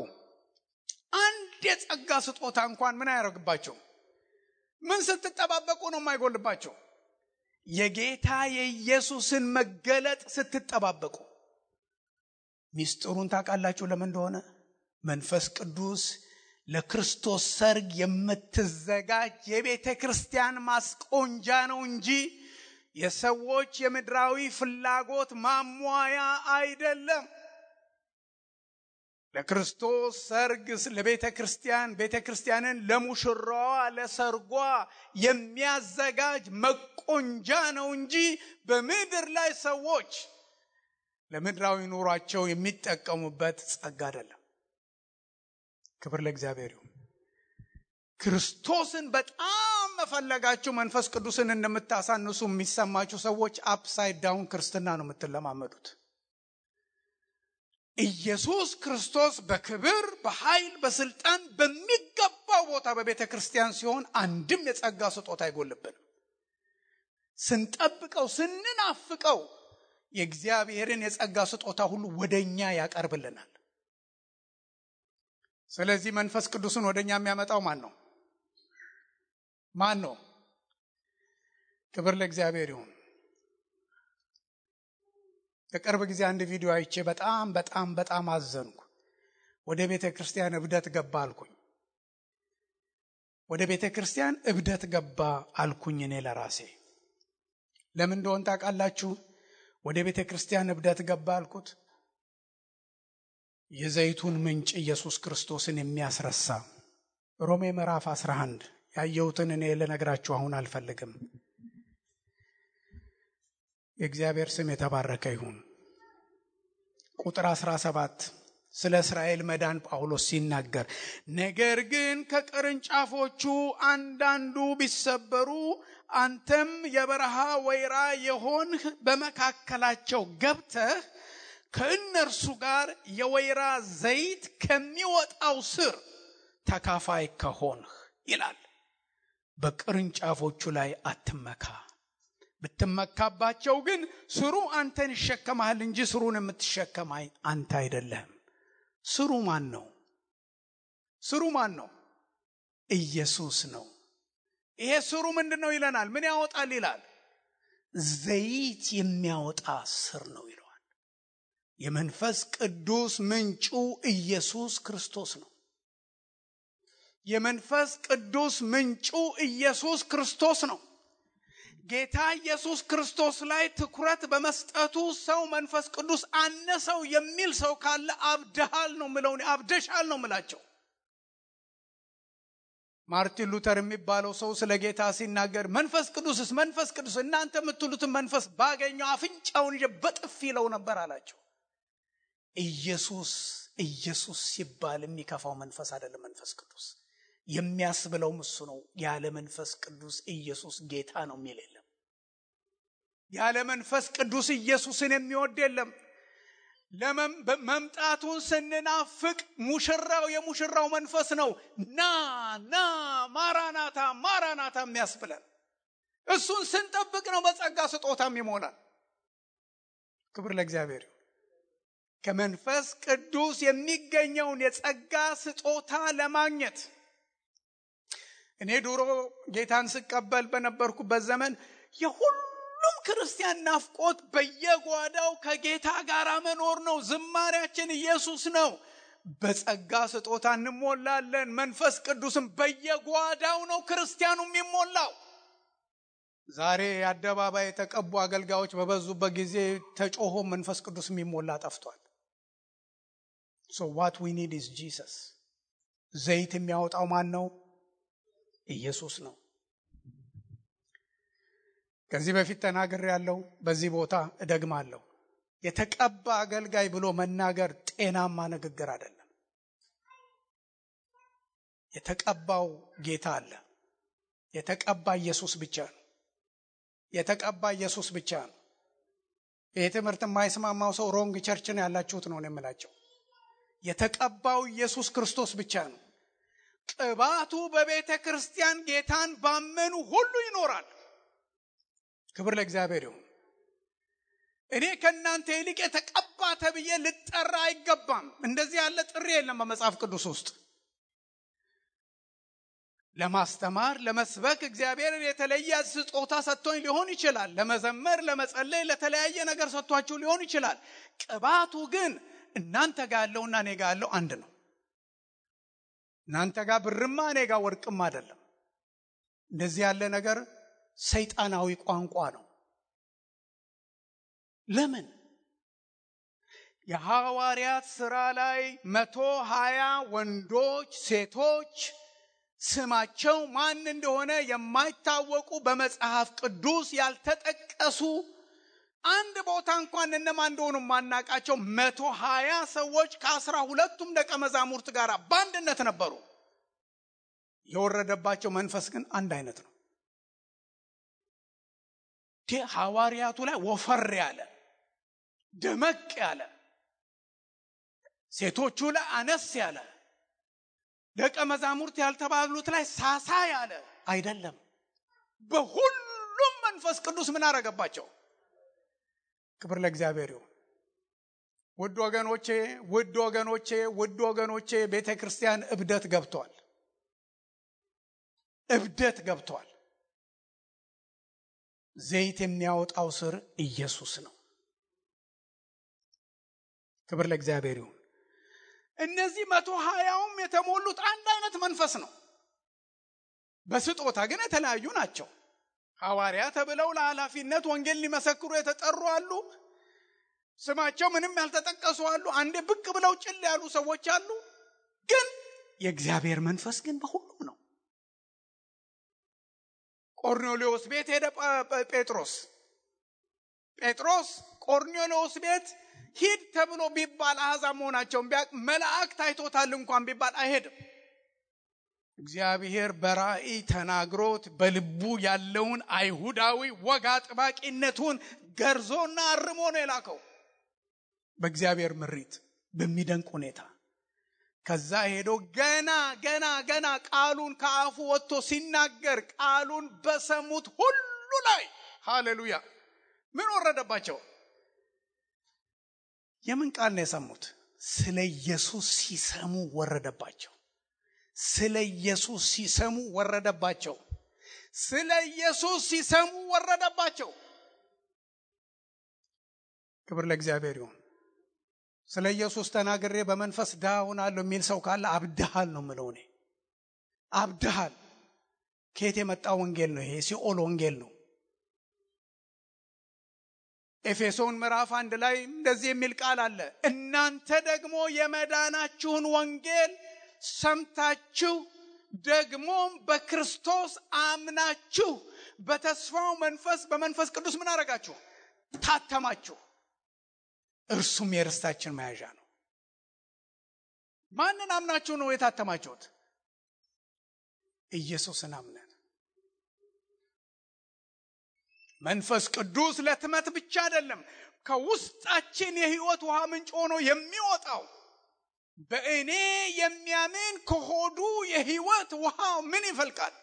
አንድ የጸጋ ስጦታ እንኳን ምን አያደርግባቸው? ምን ስትጠባበቁ ነው የማይጎልባቸው? የጌታ የኢየሱስን መገለጥ ስትጠባበቁ። ሚስጥሩን ታውቃላችሁ ለምን እንደሆነ? መንፈስ ቅዱስ ለክርስቶስ ሰርግ የምትዘጋጅ የቤተ ክርስቲያን ማስቆንጃ ነው እንጂ የሰዎች የምድራዊ ፍላጎት ማሟያ አይደለም። ለክርስቶስ ሰርግ ለቤተ ክርስቲያንን ለሙሽራዋ ለሰርጓ የሚያዘጋጅ መቆንጃ ነው እንጂ በምድር ላይ ሰዎች ለምድራዊ ኑሯቸው የሚጠቀሙበት ጸጋ አይደለም። ክብር ለእግዚአብሔር ይሁን። ክርስቶስን በጣም መፈለጋችሁ መንፈስ ቅዱስን እንደምታሳንሱ የሚሰማችሁ ሰዎች አፕሳይድ ዳውን ክርስትና ነው የምትለማመዱት። ኢየሱስ ክርስቶስ በክብር በኃይል በስልጣን በሚገባው ቦታ በቤተ ክርስቲያን ሲሆን አንድም የጸጋ ስጦታ አይጎልብንም። ስንጠብቀው ስንናፍቀው የእግዚአብሔርን የጸጋ ስጦታ ሁሉ ወደኛ ያቀርብልናል። ስለዚህ መንፈስ ቅዱስን ወደኛ የሚያመጣው ማን ነው? ክብር ለእግዚአብሔር ይሁን። በቅርብ ጊዜ አንድ ቪዲዮ አይቼ በጣም አዘንኩ። ወደ ቤተ ክርስቲያን እብደት ገባ አልኩኝ። እኔ ለራሴ ለምን እንደሆነ ታውቃላችሁ? ወደ ቤተ ክርስቲያን እብደት ገባ አልኩት። የዘይቱን ምንጭ ኢየሱስ ክርስቶስን የሚያስረሳ ሮሜ ምዕራፍ 11 ያየሁትን እኔ ልነግራችሁ አሁን አልፈልግም። የእግዚአብሔር ስም የተባረከ ይሁን። ቁጥር 17 ስለ እስራኤል መዳን ጳውሎስ ሲናገር ነገር ግን ከቅርንጫፎቹ አንዳንዱ ቢሰበሩ አንተም የበረሃ ወይራ የሆንህ በመካከላቸው ገብተህ ከእነርሱ ጋር የወይራ ዘይት ከሚወጣው ስር ተካፋይ ከሆንህ ይላል። በቅርንጫፎቹ ላይ አትመካ። ብትመካባቸው ግን ስሩ አንተን ይሸከማል እንጂ ስሩን የምትሸከም አንተ አይደለህም። ስሩ ማን ነው? ኢየሱስ ነው። ይሄ ስሩ ምንድነው ይለናል? ምን ያወጣል ይላል? ዘይት የሚያወጣ ስር ነው ይለዋል። የመንፈስ ቅዱስ ምንጩ ኢየሱስ ክርስቶስ ነው። የመንፈስ ቅዱስ ምንጩ ኢየሱስ ክርስቶስ ነው። ጌታ ኢየሱስ ክርስቶስ ላይ ትኩረት በመስጠቱ ሰው መንፈስ ቅዱስ አነሰው የሚል ሰው ካለ አብደሃል ነው ምለው፣ አብደሻል ነው ምላቸው። ማርቲን ሉተር የሚባለው ሰው ስለ ጌታ ሲናገር መንፈስ ቅዱስ እናንተ የምትሉትን መንፈስ ባገኘው አፍንጫውን በጥፊ ይለው ነበር አላቸው። ኢየሱስ ሲባል የሚከፋው መንፈስ አይደለም። መንፈስ ቅዱስ የሚያስብለው እሱ ነው። ያለ መንፈስ ቅዱስ ኢየሱስ ጌታ ነው የሚል የለም። ያለ መንፈስ ቅዱስ ኢየሱስን የሚወድ የለም። መምጣቱን ስንናፍቅ ሙሽራው የሙሽራው መንፈስ ነው ና ማራናታ ማራናታ የሚያስብለን። እሱን ስንጠብቅ ነው በጸጋ ስጦታም ይሞላል። ክብር ለእግዚአብሔር። ከመንፈስ ቅዱስ የሚገኘውን የጸጋ ስጦታ ለማግኘት እኔ ድሮ ጌታን ስቀበል በነበርኩበት ዘመን የሁሉም ክርስቲያን ናፍቆት በየጓዳው ከጌታ ጋር መኖር ነው። ዝማሬያችን ኢየሱስ ነው። በጸጋ ስጦታ እንሞላለን። መንፈስ ቅዱስም በየጓዳው ነው ክርስቲያኑ የሚሞላው። ዛሬ አደባባይ የተቀቡ አገልጋዮች በበዙበት ጊዜ ተጮሆ መንፈስ ቅዱስ የሚሞላ ጠፍቷል። So what we need is Jesus. ዘይት የሚያወጣው ማን ነው? ኢየሱስ ነው። ከዚህ በፊት ተናግሬያለሁ፣ በዚህ ቦታ እደግማለሁ። የተቀባ አገልጋይ ብሎ መናገር ጤናማ ንግግር አይደለም። የተቀባው ጌታ አለ። የተቀባ ኢየሱስ ብቻ ነው። የተቀባ ኢየሱስ ብቻ ነው። ይህ ትምህርት የማይስማማው ሰው ሮንግ ቸርች ነው ያላችሁት ነው የምላቸው። የተቀባው ኢየሱስ ክርስቶስ ብቻ ነው። ቅባቱ በቤተ ክርስቲያን ጌታን ባመኑ ሁሉ ይኖራል። ክብር ለእግዚአብሔር ይሁን። እኔ ከናንተ ይልቅ የተቀባ ተብዬ ልጠራ አይገባም። እንደዚህ ያለ ጥሪ የለም በመጽሐፍ ቅዱስ ውስጥ። ለማስተማር ለመስበክ እግዚአብሔር የተለየ ስጦታ ሰጥቶኝ ሊሆን ይችላል። ለመዘመር ለመጸለይ ለተለያየ ነገር ሰጥቷችሁ ሊሆን ይችላል። ቅባቱ ግን እናንተ ጋር ያለውና እኔ ጋር ያለው አንድ ነው። እናንተ ጋር ብርማ እኔ ጋር ወርቅም አይደለም። እንደዚህ ያለ ነገር ሰይጣናዊ ቋንቋ ነው። ለምን? የሐዋርያት ሥራ ላይ 120 ወንዶች ሴቶች ስማቸው ማን እንደሆነ የማይታወቁ በመጽሐፍ ቅዱስ ያልተጠቀሱ አንድ ቦታ እንኳን እነማን እንደሆኑ ማናቃቸው 120 ሰዎች ከ12ቱም ደቀ መዛሙርት ጋር በአንድነት ነበሩ። የወረደባቸው መንፈስ ግን አንድ አይነት ነው። ሐዋርያቱ ላይ ወፈር ያለ ደመቅ ያለ፣ ሴቶቹ ላይ አነስ ያለ፣ ደቀ መዛሙርት ያልተባሉት ላይ ሳሳ ያለ አይደለም። በሁሉም መንፈስ ቅዱስ ምን አረገባቸው? ክብር ለእግዚአብሔር ይሁን። ውድ ወገኖቼ ቤተክርስቲያን እብደት ገብቷል። ዘይት የሚያወጣው ስር ኢየሱስ ነው። ክብር ለእግዚአብሔር ይሁን። እነዚህ 120ም የተሞሉት አንድ አይነት መንፈስ ነው። በስጦታ ግን የተለያዩ ናቸው። ሐዋርያ ተብለው ለኃላፊነት ወንጌል ሊመሰክሩ የተጠሩ አሉ። ስማቸው ምንም ያልተጠቀሱ አሉ። አንዴ ብቅ ብለው ጭል ያሉ ሰዎች አሉ። ግን የእግዚአብሔር መንፈስ ግን በሁሉም ነው። ቆርኔሌዎስ ቤት ሄደ ጴጥሮስ ቆርኔሌዎስ ቤት ሂድ ተብሎ ቢባል አሕዛብ መሆናቸውን ቢያቅ መልአክ ታይቶታል እንኳን ቢባል አይሄድም። እግዚአብሔር በራእይ ተናግሮት በልቡ ያለውን አይሁዳዊ ወግ አጥባቂነቱን ገርዞና አርሞ ነው የላከው በእግዚአብሔር ምሪት በሚደንቅ ሁኔታ። ከዛ ሄዶ ገና ቃሉን ከአፉ ወጥቶ ሲናገር ቃሉን በሰሙት ሁሉ ላይ ሃሌሉያ ምን ወረደባቸው? የምን ቃል ነው የሰሙት? ስለ ኢየሱስ ሲሰሙ ወረደባቸው። ስለ ኢየሱስ ሲሰሙ ወረደባቸው። ክብር ለእግዚአብሔር ይሁን። ስለ ኢየሱስ ተናግሬ በመንፈስ ድሃ ሆናለሁ የሚል ሰው ካለ አብድሃል ነው የምለው እኔ። አብድሃል። ከየት የመጣ ወንጌል ነው ይሄ? ሲኦል ወንጌል ነው። ኤፌሶን ምዕራፍ 1 ላይ እንደዚህ የሚል ቃል አለ። እናንተ ደግሞ የመዳናችሁን ወንጌል ሰምታችሁ ደግሞም በክርስቶስ አምናችሁ በተስፋው መንፈስ በመንፈስ ቅዱስ ምን አረጋችሁ? ታተማችሁ። እርሱም የርስታችን መያዣ ነው። ማንን አምናችሁ ነው የታተማችሁት? ኢየሱስን አምነን። መንፈስ ቅዱስ ለትመት ብቻ አይደለም፣ ከውስጣችን የሕይወት ውሃ ምንጭ ሆኖ የሚወጣው። በእኔ የሚያምን ከሆዱ የሕይወት ውሃ ምን ይፈልቃል?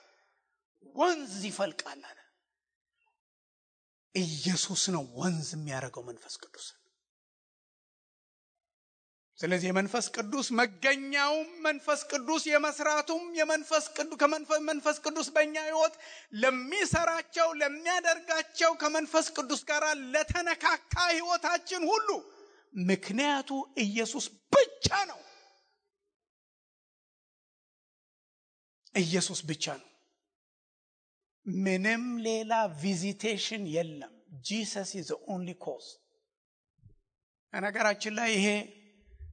ወንዝ ይፈልቃል አለ። ኢየሱስ ነው ወንዝ የሚያደርገው መንፈስ ቅዱስ። ስለዚህ የመንፈስ ቅዱስ መገኛውም መንፈስ ቅዱስ የመስራቱም መንፈስ ቅዱስ በእኛ ሕይወት ለሚሰራቸው ለሚያደርጋቸው ከመንፈስ ቅዱስ ጋር ለተነካካ ሕይወታችን ሁሉ ምክንያቱ ኢየሱስ ብቻ ነው። ኢየሱስ ብቻ ነው። ምንም ሌላ ቪዚቴሽን የለም። Jesus is the only cause። ነገራችን ላይ ይሄ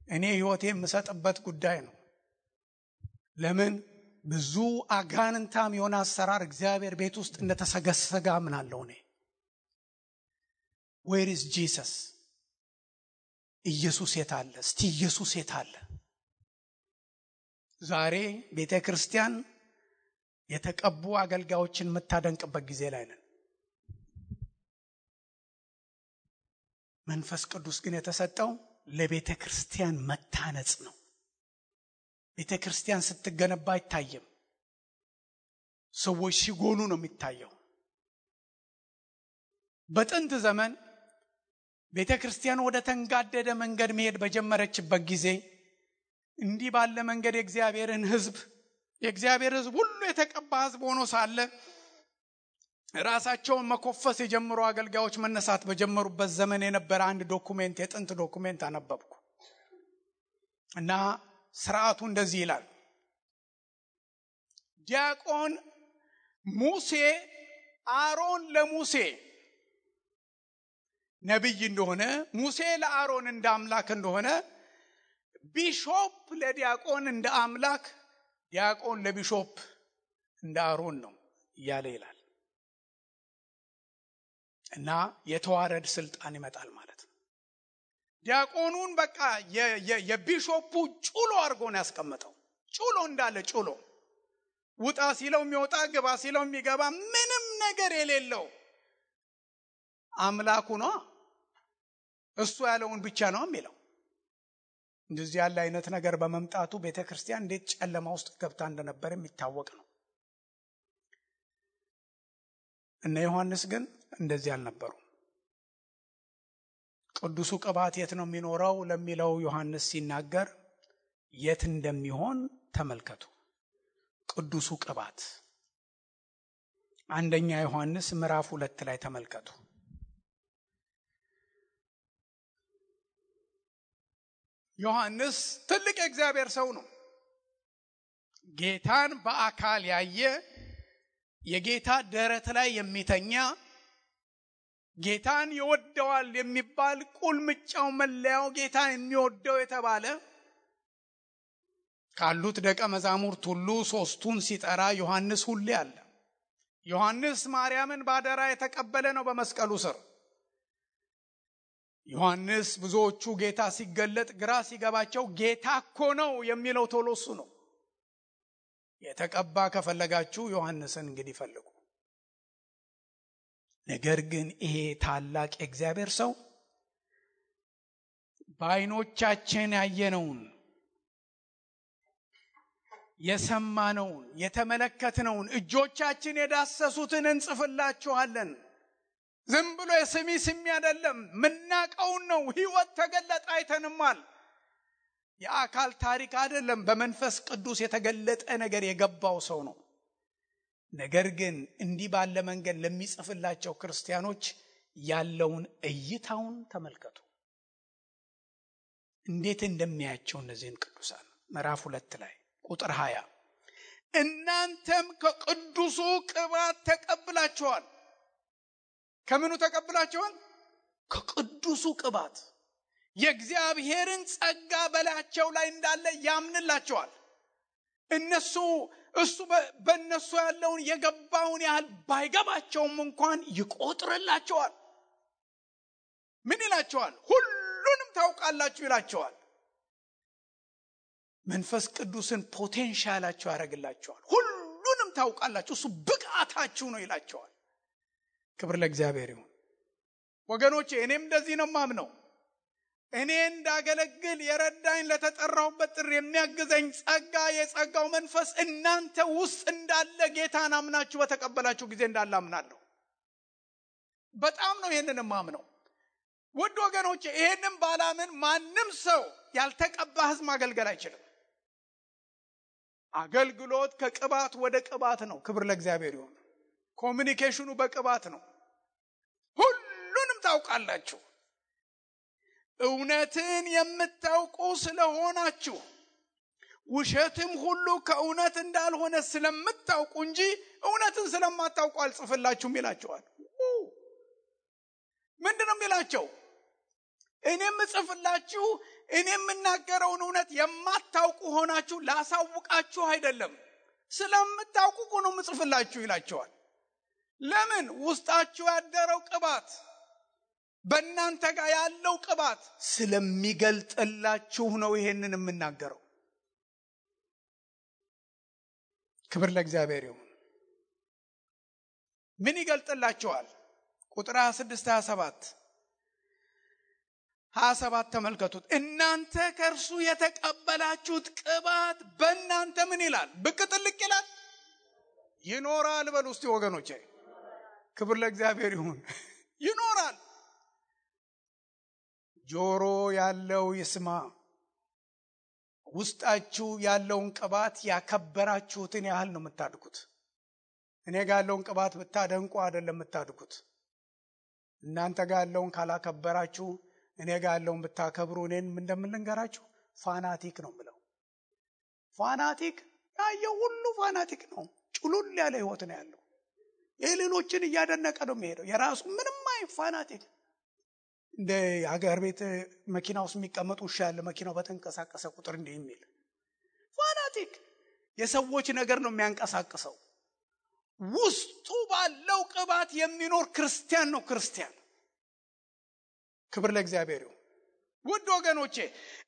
እኔ ሕይወቴ የምሰጥበት ጉዳይ ነው። ለምን ብዙ አጋንንታም የሆነ አሰራር እግዚአብሔር ቤት ውስጥ እንደተሰገሰገ አምናለሁ እኔ። Where is Jesus? ኢየሱስ የት አለ? እስቲ ኢየሱስ የት አለ? ዛሬ ቤተ ክርስቲያን የተቀቡ አገልጋዮችን የምታደንቅበት ጊዜ ላይ ነን። መንፈስ ቅዱስ ግን የተሰጠው ለቤተ ክርስቲያን መታነጽ ነው። ቤተ ክርስቲያን ስትገነባ አይታየም። ሰዎች ሲጎሉ ነው የሚታየው። በጥንት ዘመን ቤተ ክርስቲያን ወደ ተንጋደደ መንገድ መሄድ በጀመረችበት ጊዜ እንዲህ ባለ መንገድ የእግዚአብሔር ሕዝብ ሁሉ የተቀባ ሕዝብ ሆኖ ሳለ ራሳቸውን መኮፈስ የጀመሩ አገልጋዮች መነሳት በጀመሩበት ዘመን የነበረ አንድ ዶኩሜንት፣ የጥንት ዶኩሜንት አነበብኩ እና ስርዓቱ እንደዚህ ይላል። ዲያቆን ሙሴ አሮን ለሙሴ ነብይ እንደሆነ፣ ሙሴ ለአሮን እንደ አምላክ እንደሆነ፣ ቢሾፕ ለዲያቆን እንደ አምላክ፣ ዲያቆን ለቢሾፕ እንደ አሮን ነው እያለ ይላል። እና የተዋረድ ስልጣን ይመጣል ማለት ነው። ዲያቆኑን በቃ የቢሾፑ ጩሎ አድርጎ ነው ያስቀመጠው። ጩሎ እንዳለ ጩሎ፣ ውጣ ሲለው የሚወጣ ግባ ሲለው የሚገባ ምንም ነገር የሌለው አምላኩ ነው። እሱ ያለውን ብቻ ነው የሚለው። እንደዚህ ያለ አይነት ነገር በመምጣቱ ቤተክርስቲያን እንዴት ጨለማ ውስጥ ገብታ እንደነበር የሚታወቅ ነው። እነ ዮሐንስ ግን እንደዚህ አልነበሩ። ቅዱሱ ቅባት የት ነው የሚኖረው ለሚለው ዮሐንስ ሲናገር የት እንደሚሆን ተመልከቱ። ቅዱሱ ቅባት አንደኛ ዮሐንስ ምዕራፍ 2 ላይ ተመልከቱ። ዮሐንስ ትልቅ የእግዚአብሔር ሰው ነው። ጌታን በአካል ያየ፣ የጌታ ደረት ላይ የሚተኛ፣ ጌታን ይወደዋል የሚባል ቁልምጫው መለያው ጌታ የሚወደው የተባለ ካሉት ደቀ መዛሙርት ሁሉ ሶስቱን ሲጠራ ዮሐንስ ሁሌ አለ። ዮሐንስ ማርያምን ባደራ የተቀበለ ነው በመስቀሉ ስር። ዮሐንስ ብዙዎቹ ጌታ ሲገለጥ ግራ ሲገባቸው ጌታ እኮ ነው የሚለው ቶሎ እሱ ነው። የተቀባ ከፈለጋችሁ ዮሐንስን እንግዲህ ፈልጉ። ነገር ግን ይሄ ታላቅ የእግዚአብሔር ሰው በዓይኖቻችን ያየነውን፣ የሰማነውን፣ የተመለከትነውን፣ እጆቻችን የዳሰሱትን እንጽፍላችኋለን። ዝም ብሎ ስሚ አይደለም፣ ምናቀውን ነው። ሕይወት ተገለጠ፣ አይተንማል። የአካል ታሪክ አይደለም፣ በመንፈስ ቅዱስ የተገለጠ ነገር የገባው ሰው ነው። ነገር ግን እንዲህ ባለ መንገድ ለሚጽፍላቸው ክርስቲያኖች ያለውን እይታውን ተመልከቱ። እንዴት እንደሚያያቸው እነዚህን ቅዱሳን ምዕራፍ 2 ላይ ቁጥር 20 እናንተም ከቅዱሱ ቅባት ተቀብላችኋል። ከምኑ ተቀብላችኋል? ከቅዱሱ ቅባት። የእግዚአብሔርን ጸጋ በላያቸው ላይ እንዳለ ያምንላቸዋል። እሱ በእነሱ ያለውን የገባውን ያህል ባይገባቸውም እንኳን ይቆጥርላቸዋል። ምን ይላቸዋል? ሁሉንም ታውቃላችሁ ይላቸዋል። መንፈስ ቅዱስን ፖቴንሻላችሁ ያደርግላቸዋል። ሁሉንም ታውቃላችሁ፣ እሱ ብቃታችሁ ነው ይላቸዋል። ክብር ለእግዚአብሔር ይሁን ወገኖቼ። እኔም እንደዚህ ነው ማምነው። እኔ እንዳገለግል የረዳኝ ለተጠራሁበት ጥሪ የሚያግዘኝ ጸጋ የጸጋው መንፈስ እናንተ ውስጥ እንዳለ ጌታን አምናችሁ በተቀበላችሁ ጊዜ እንዳለ አምናለሁ። በጣም ነው ይሄንን ማምነው። ውድ ወገኖቼ ይሄንን ባላምን ማንም ሰው ያልተቀባ ሕዝብ ማገልገል አይችልም። አገልግሎት ከቅባት ወደ ቅባት ነው። ክብር ለእግዚአብሔር ይሁን። ኮሚኒኬሽኑ በቅባት ነው። ሁሉንም ታውቃላችሁ። እውነትን የምታውቁ ስለሆናችሁ ውሸትም ሁሉ ከእውነት እንዳልሆነ ስለምታውቁ እንጂ እውነትን ስለማታውቁ አልጽፍላችሁም ይላቸዋል። ምንድነው የሚላቸው? እኔም ጽፍላችሁ እኔ የምናገረውን እውነት የማታውቁ ሆናችሁ ላሳውቃችሁ አይደለም፣ ስለምታውቁ ነው የምጽፍላችሁ ይላቸዋል። ለምን? ውስጣችሁ ያደረው ቅባት በእናንተ ጋር ያለው ቅባት ስለሚገልጥላችሁ ነው ይሄንን የምናገረው። ክብር ለእግዚአብሔር ይሁን። ምን ይገልጥላችኋል? ቁጥር 26 27 ተመልከቱት። እናንተ ከእርሱ የተቀበላችሁት ቅባት በእናንተ ምን ይላል? ብቅ ጥልቅ ይላል፣ ይኖራል። በሉ እስቲ ወገኖቼ፣ ክብር ለእግዚአብሔር ይሁን። ይኖራል። ጆሮ ያለው ይስማ። ውስጣችሁ ያለውን ቅባት ያከበራችሁትን ያህል ነው የምታድጉት። እኔ ጋር ያለውን ቅባት ብታደንቁ አይደለም የምታድጉት። እናንተ ጋር ያለውን ካላከበራችሁ እኔ ጋር ያለውን ብታከብሩ እኔን እንደምንገራችሁ ፋናቲክ ነው ብለው። ፋናቲክ ያየው ሁሉ ፋናቲክ ነው። ጭሉል ያለ ህይወት ነው ያለው። የሌሎችን እያደነቀ ነው የሚሄደው። የራሱ ምንም ፋናቲክ። እንደ ሀገር ቤት መኪና ውስጥ የሚቀመጡ ውሻ ያለ መኪናው በተንቀሳቀሰ ቁጥር እንዲህ የሚል ፋናቲክ የሰዎች ነገር ነው የሚያንቀሳቅሰው። ውስጡ ባለው ቅባት የሚኖር ክርስቲያን ነው ክርስቲያን። ክብር ለእግዚአብሔር ይሁን። ውድ ወገኖቼ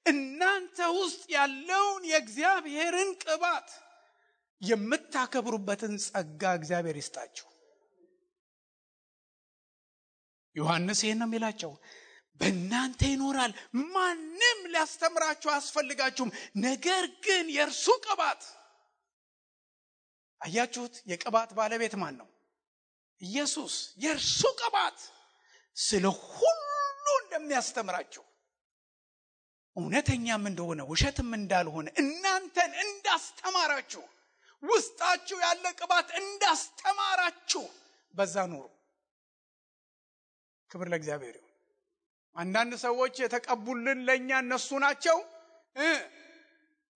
እናንተ ውስጥ ያለውን የእግዚአብሔርን ቅባት የምታከብሩበትን ጸጋ እግዚአብሔር ይስጣችሁ። ዮሐንስ ይሄን ነው የሚላቸው፣ በእናንተ ይኖራል፣ ማንም ሊያስተምራችሁ አያስፈልጋችሁም። ነገር ግን የእርሱ ቅባት፣ አያችሁት? የቅባት ባለቤት ማን ነው? ኢየሱስ። የእርሱ ቅባት ስለ ሁሉ እንደሚያስተምራችሁ፣ እውነተኛም እንደሆነ ውሸትም እንዳልሆነ እናንተን እንዳስተማራችሁ፣ ውስጣችሁ ያለ ቅባት እንዳስተማራችሁ በዛ ኑሩ። ክብር ለእግዚአብሔር ይሁን። አንዳንድ ሰዎች የተቀቡልን ለኛ እነሱ ናቸው።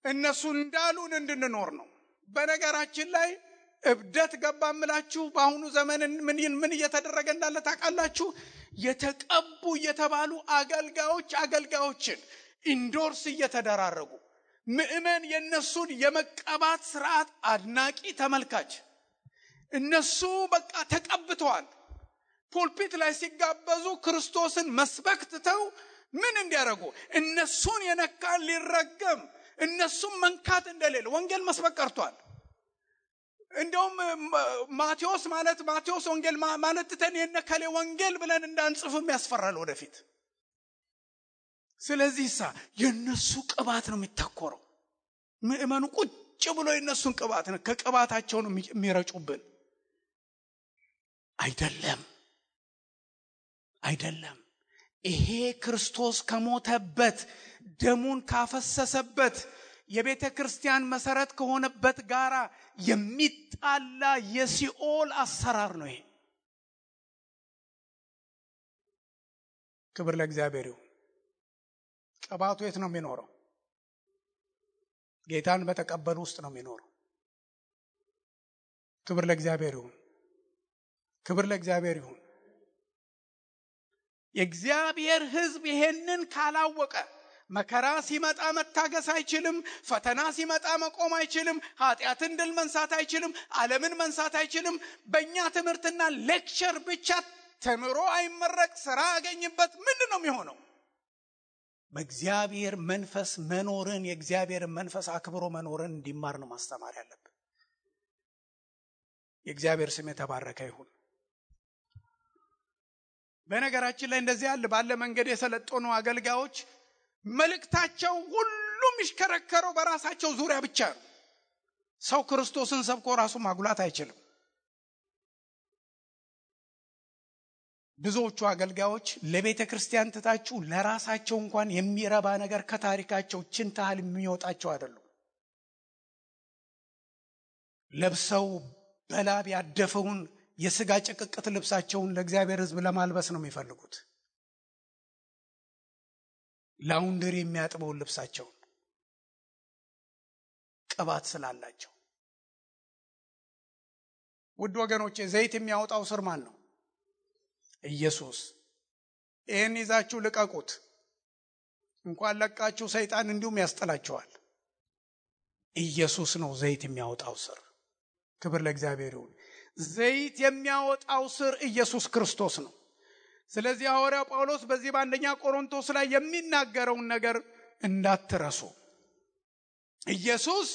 እነሱ እንዳሉን እንድንኖር ነው። በነገራችን ላይ እብደት ገባምላችሁ። በአሁኑ ዘመን ምን እየተደረገ እንዳለ ታውቃላችሁ? የተቀቡ እየተባሉ አገልጋዮችን ኢንዶርስ እየተደራረጉ ምእመን የነሱን የመቀባት ስርዓት አድናቂ ተመልካች። እነሱ በቃ ተቀብተዋል። ፑልፒት ላይ ሲጋበዙ ክርስቶስን መስበክ ትተው ምን እንዲያደርጉ? እነሱን የነካ ሊረገም፣ እነሱን መንካት እንደሌለ ወንጌል መስበክ ቀርቷል። እንደውም ማቴዎስ ወንጌል ማለት ተን የነከለ ወንጌል ብለን እንዳንጽፍም ያስፈራል ወደፊት። ስለዚህ የነሱ ቅባት ነው የሚተኮረው። ምእመኑ ቁጭ ብሎ የነሱን ቅባት ነው ከቅባታቸው ነው የሚረጩብን። አይደለም። ይሄ ክርስቶስ ከሞተበት ደሙን ካፈሰሰበት የቤተ ክርስቲያን መሰረት ከሆነበት ጋራ የሚጣላ የሲኦል አሰራር ነው ይሄ። ክብር ለእግዚአብሔር ይሁን። ቅባቱ የት ነው የሚኖረው? ጌታን በተቀበሉ ውስጥ ነው የሚኖረው። ክብር ለእግዚአብሔር ይሁን። ክብር ለእግዚአብሔር ይሁን። የእግዚአብሔር ሕዝብ ይሄንን ካላወቀ መከራ ሲመጣ መታገስ አይችልም። ፈተና ሲመጣ መቆም አይችልም። ኃጢአትን ድል መንሳት አይችልም። ዓለምን መንሳት አይችልም። በእኛ ትምህርትና ሌክቸር ብቻ ተምሮ አይመረቅ፣ ስራ ያገኝበት ምንድን ነው የሚሆነው? በእግዚአብሔር መንፈስ መኖርን፣ የእግዚአብሔር መንፈስ አክብሮ መኖርን እንዲማር ነው ማስተማር ያለብን። የእግዚአብሔር ስም የተባረከ ይሁን። በነገራችን ላይ እንደዚህ ያለ ባለ መንገድ የሰለጠኑ አገልጋዮች መልእክታቸው ሁሉም ይሽከረከረው በራሳቸው ዙሪያ ብቻ ነው። ሰው ክርስቶስን ሰብኮ ራሱ ማጉላት አይችልም። ብዙዎቹ አገልጋዮች ለቤተ ክርስቲያን ትታችሁ ለራሳቸው እንኳን የሚረባ ነገር ከታሪካቸው ችንታል የሚወጣቸው አይደሉም። ለብሰው በላብ ያደፈውን የሥጋ ጭቅቅት ልብሳቸውን ለእግዚአብሔር ሕዝብ ለማልበስ ነው የሚፈልጉት። ላውንደሪ የሚያጥበውን ልብሳቸውን ቅባት ስላላቸው። ውድ ወገኖቼ ዘይት የሚያወጣው ስር ማን ነው? ኢየሱስ። ይህን ይዛችሁ ልቀቁት። እንኳን ለቃችሁ ሰይጣን እንዲሁም ያስጠላችኋል። ኢየሱስ ነው ዘይት የሚያወጣው ስር። ክብር ለእግዚአብሔር ይሁን። ዘይት የሚያወጣው ስር ኢየሱስ ክርስቶስ ነው። ስለዚህ ሐዋርያው ጳውሎስ በዚህ በአንደኛ ቆሮንቶስ ላይ የሚናገረውን ነገር እንዳትረሱ። ኢየሱስ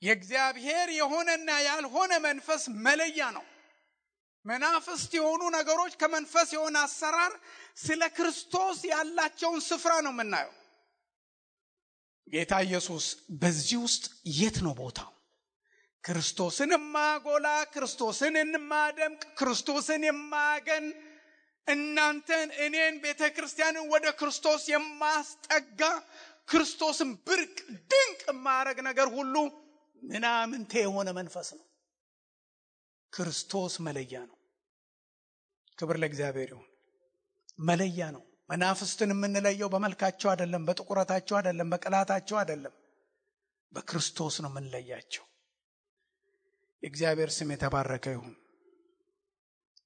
የእግዚአብሔር የሆነና ያልሆነ መንፈስ መለያ ነው። መናፍስት የሆኑ ነገሮች ከመንፈስ የሆነ አሰራር ስለ ክርስቶስ ያላቸውን ስፍራ ነው የምናየው። ጌታ ኢየሱስ በዚህ ውስጥ የት ነው ቦታው? ክርስቶስን የማጎላ፣ ክርስቶስን የማደምቅ፣ ክርስቶስን የማገን፣ እናንተን እኔን ቤተ ክርስቲያንን ወደ ክርስቶስ የማስጠጋ፣ ክርስቶስን ብርቅ ድንቅ የማያረግ ነገር ሁሉ ምናምንቴ የሆነ መንፈስ ነው። ክርስቶስ መለያ ነው። ክብር ለእግዚአብሔር ይሁን። መለያ ነው። መናፍስትን የምንለየው በመልካቸው አይደለም፣ በጥቁረታቸው አይደለም፣ በቅላታቸው አይደለም፣ በክርስቶስ ነው የምንለያቸው። የእግዚአብሔር ስም የተባረከ ይሁን።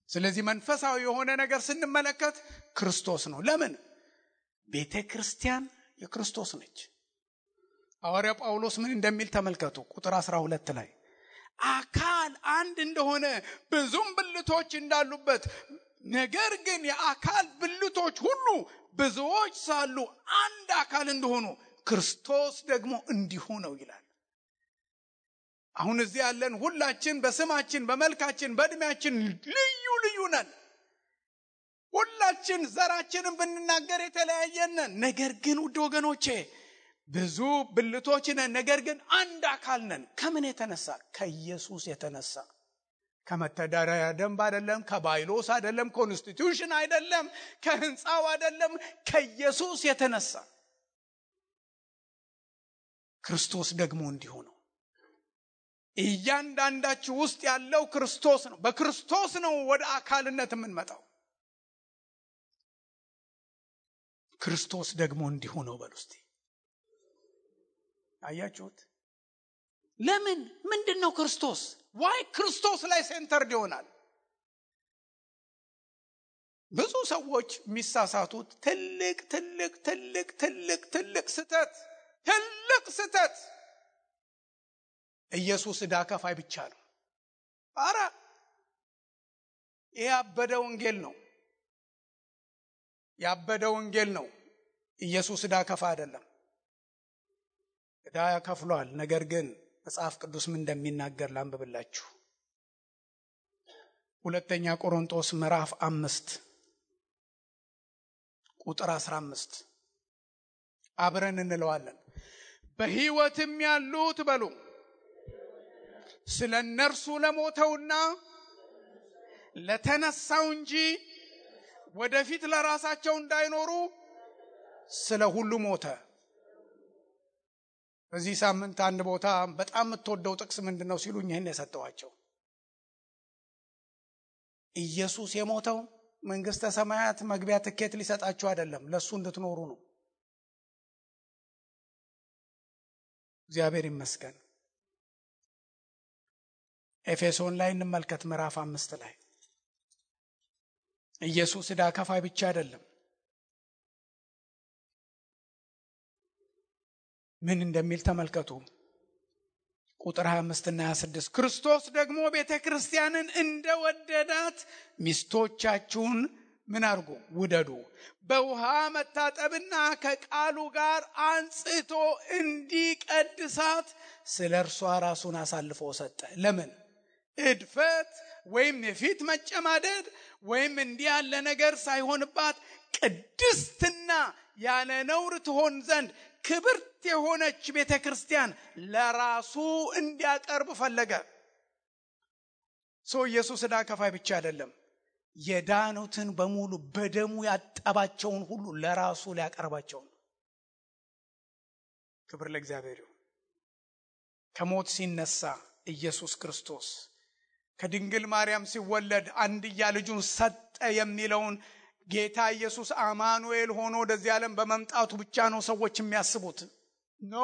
ስለዚህ መንፈሳዊ የሆነ ነገር ስንመለከት ክርስቶስ ነው። ለምን? ቤተ ክርስቲያን የክርስቶስ ነች። ሐዋርያ ጳውሎስ ምን እንደሚል ተመልከቱ። ቁጥር 12 ላይ አካል አንድ እንደሆነ ብዙም ብልቶች እንዳሉበት፣ ነገር ግን የአካል ብልቶች ሁሉ ብዙዎች ሳሉ አንድ አካል እንደሆኑ ክርስቶስ ደግሞ እንዲሁ ነው ይላል። አሁን እዚህ ያለን ሁላችን በስማችን፣ በመልካችን፣ በእድሜያችን ልዩ ልዩ ነን። ሁላችን ዘራችንን ብንናገር የተለያየን ነን። ነገር ግን ውድ ወገኖቼ ብዙ ብልቶች ነን፣ ነገር ግን አንድ አካል ነን። ከምን የተነሳ? ከኢየሱስ የተነሳ። ከመተዳደሪያ ደንብ አይደለም፣ ከባይሎስ አይደለም፣ ኮንስቲቱሽን አይደለም፣ ከህንፃው አይደለም፣ ከኢየሱስ የተነሳ። ክርስቶስ ደግሞ እንዲሁ ነው። እያንዳንዳችሁ ውስጥ ያለው ክርስቶስ ነው። በክርስቶስ ነው ወደ አካልነት የምንመጣው። ክርስቶስ ደግሞ እንዲሁ ነው በሉ እስቲ። አያችሁት? ለምን? ምንድነው ክርስቶስ? ዋይ ክርስቶስ ላይ ሴንተርድ ይሆናል? ብዙ ሰዎች የሚሳሳቱት ትልቅ ስህተት ኢየሱስ ዕዳ ከፋይ ብቻ ነው። አረ ይሄ ያበደ ወንጌል ነው። ኢየሱስ ዕዳ ከፋይ አይደለም። ዕዳ ከፍሏል። ነገር ግን መጽሐፍ ቅዱስ ምን እንደሚናገር ላንብብላችሁ። ሁለተኛ ቆሮንቶስ ምዕራፍ 5 ቁጥር 15 አብረን እንለዋለን። በሕይወትም ያሉት በሉ ስለ እነርሱ ለሞተውና ለተነሳው እንጂ ወደፊት ለራሳቸው እንዳይኖሩ ስለ ሁሉ ሞተ። በዚህ ሳምንት አንድ ቦታ በጣም የምትወደው ጥቅስ ምንድነው ሲሉኝ ይሄን የሰጠዋቸው። ኢየሱስ የሞተው መንግስተ ሰማያት መግቢያ ትኬት ሊሰጣችሁ አይደለም፣ ለሱ እንድትኖሩ ነው። እግዚአብሔር ይመስገን። ኤፌሶን ላይ እንመልከት ምዕራፍ 5 ላይ ኢየሱስ ዕዳ ከፋይ ብቻ አይደለም። ምን እንደሚል ተመልከቱ። ቁጥር 25 እና 26 ክርስቶስ ደግሞ ቤተ ክርስቲያንን እንደወደዳት ሚስቶቻችሁን ምን አድርጉ? ውደዱ። በውሃ መታጠብና ከቃሉ ጋር አንጽቶ እንዲቀድሳት ስለ እርሷ ራሱን አሳልፎ ሰጠ። ለምን? እድፈት፣ ወይም የፊት መጨማደድ ወይም እንዲህ ያለ ነገር ሳይሆንባት ቅድስትና ያለ ነውር ትሆን ዘንድ ክብርት የሆነች ቤተክርስቲያን ለራሱ እንዲያቀርብ ፈለገ። ኢየሱስ ዕዳ ከፋይ ብቻ አይደለም፣ የዳኑትን በሙሉ በደሙ ያጠባቸውን ሁሉ ለራሱ ሊያቀርባቸው ነው። ክብር ለእግዚአብሔር ይሁን። ከሞት ሲነሳ ኢየሱስ ክርስቶስ ከድንግል ማርያም ሲወለድ አንድያ ልጁን ሰጠ የሚለውን ጌታ ኢየሱስ አማኑኤል ሆኖ ወደዚህ ዓለም በመምጣቱ ብቻ ነው ሰዎች የሚያስቡት። ኖ፣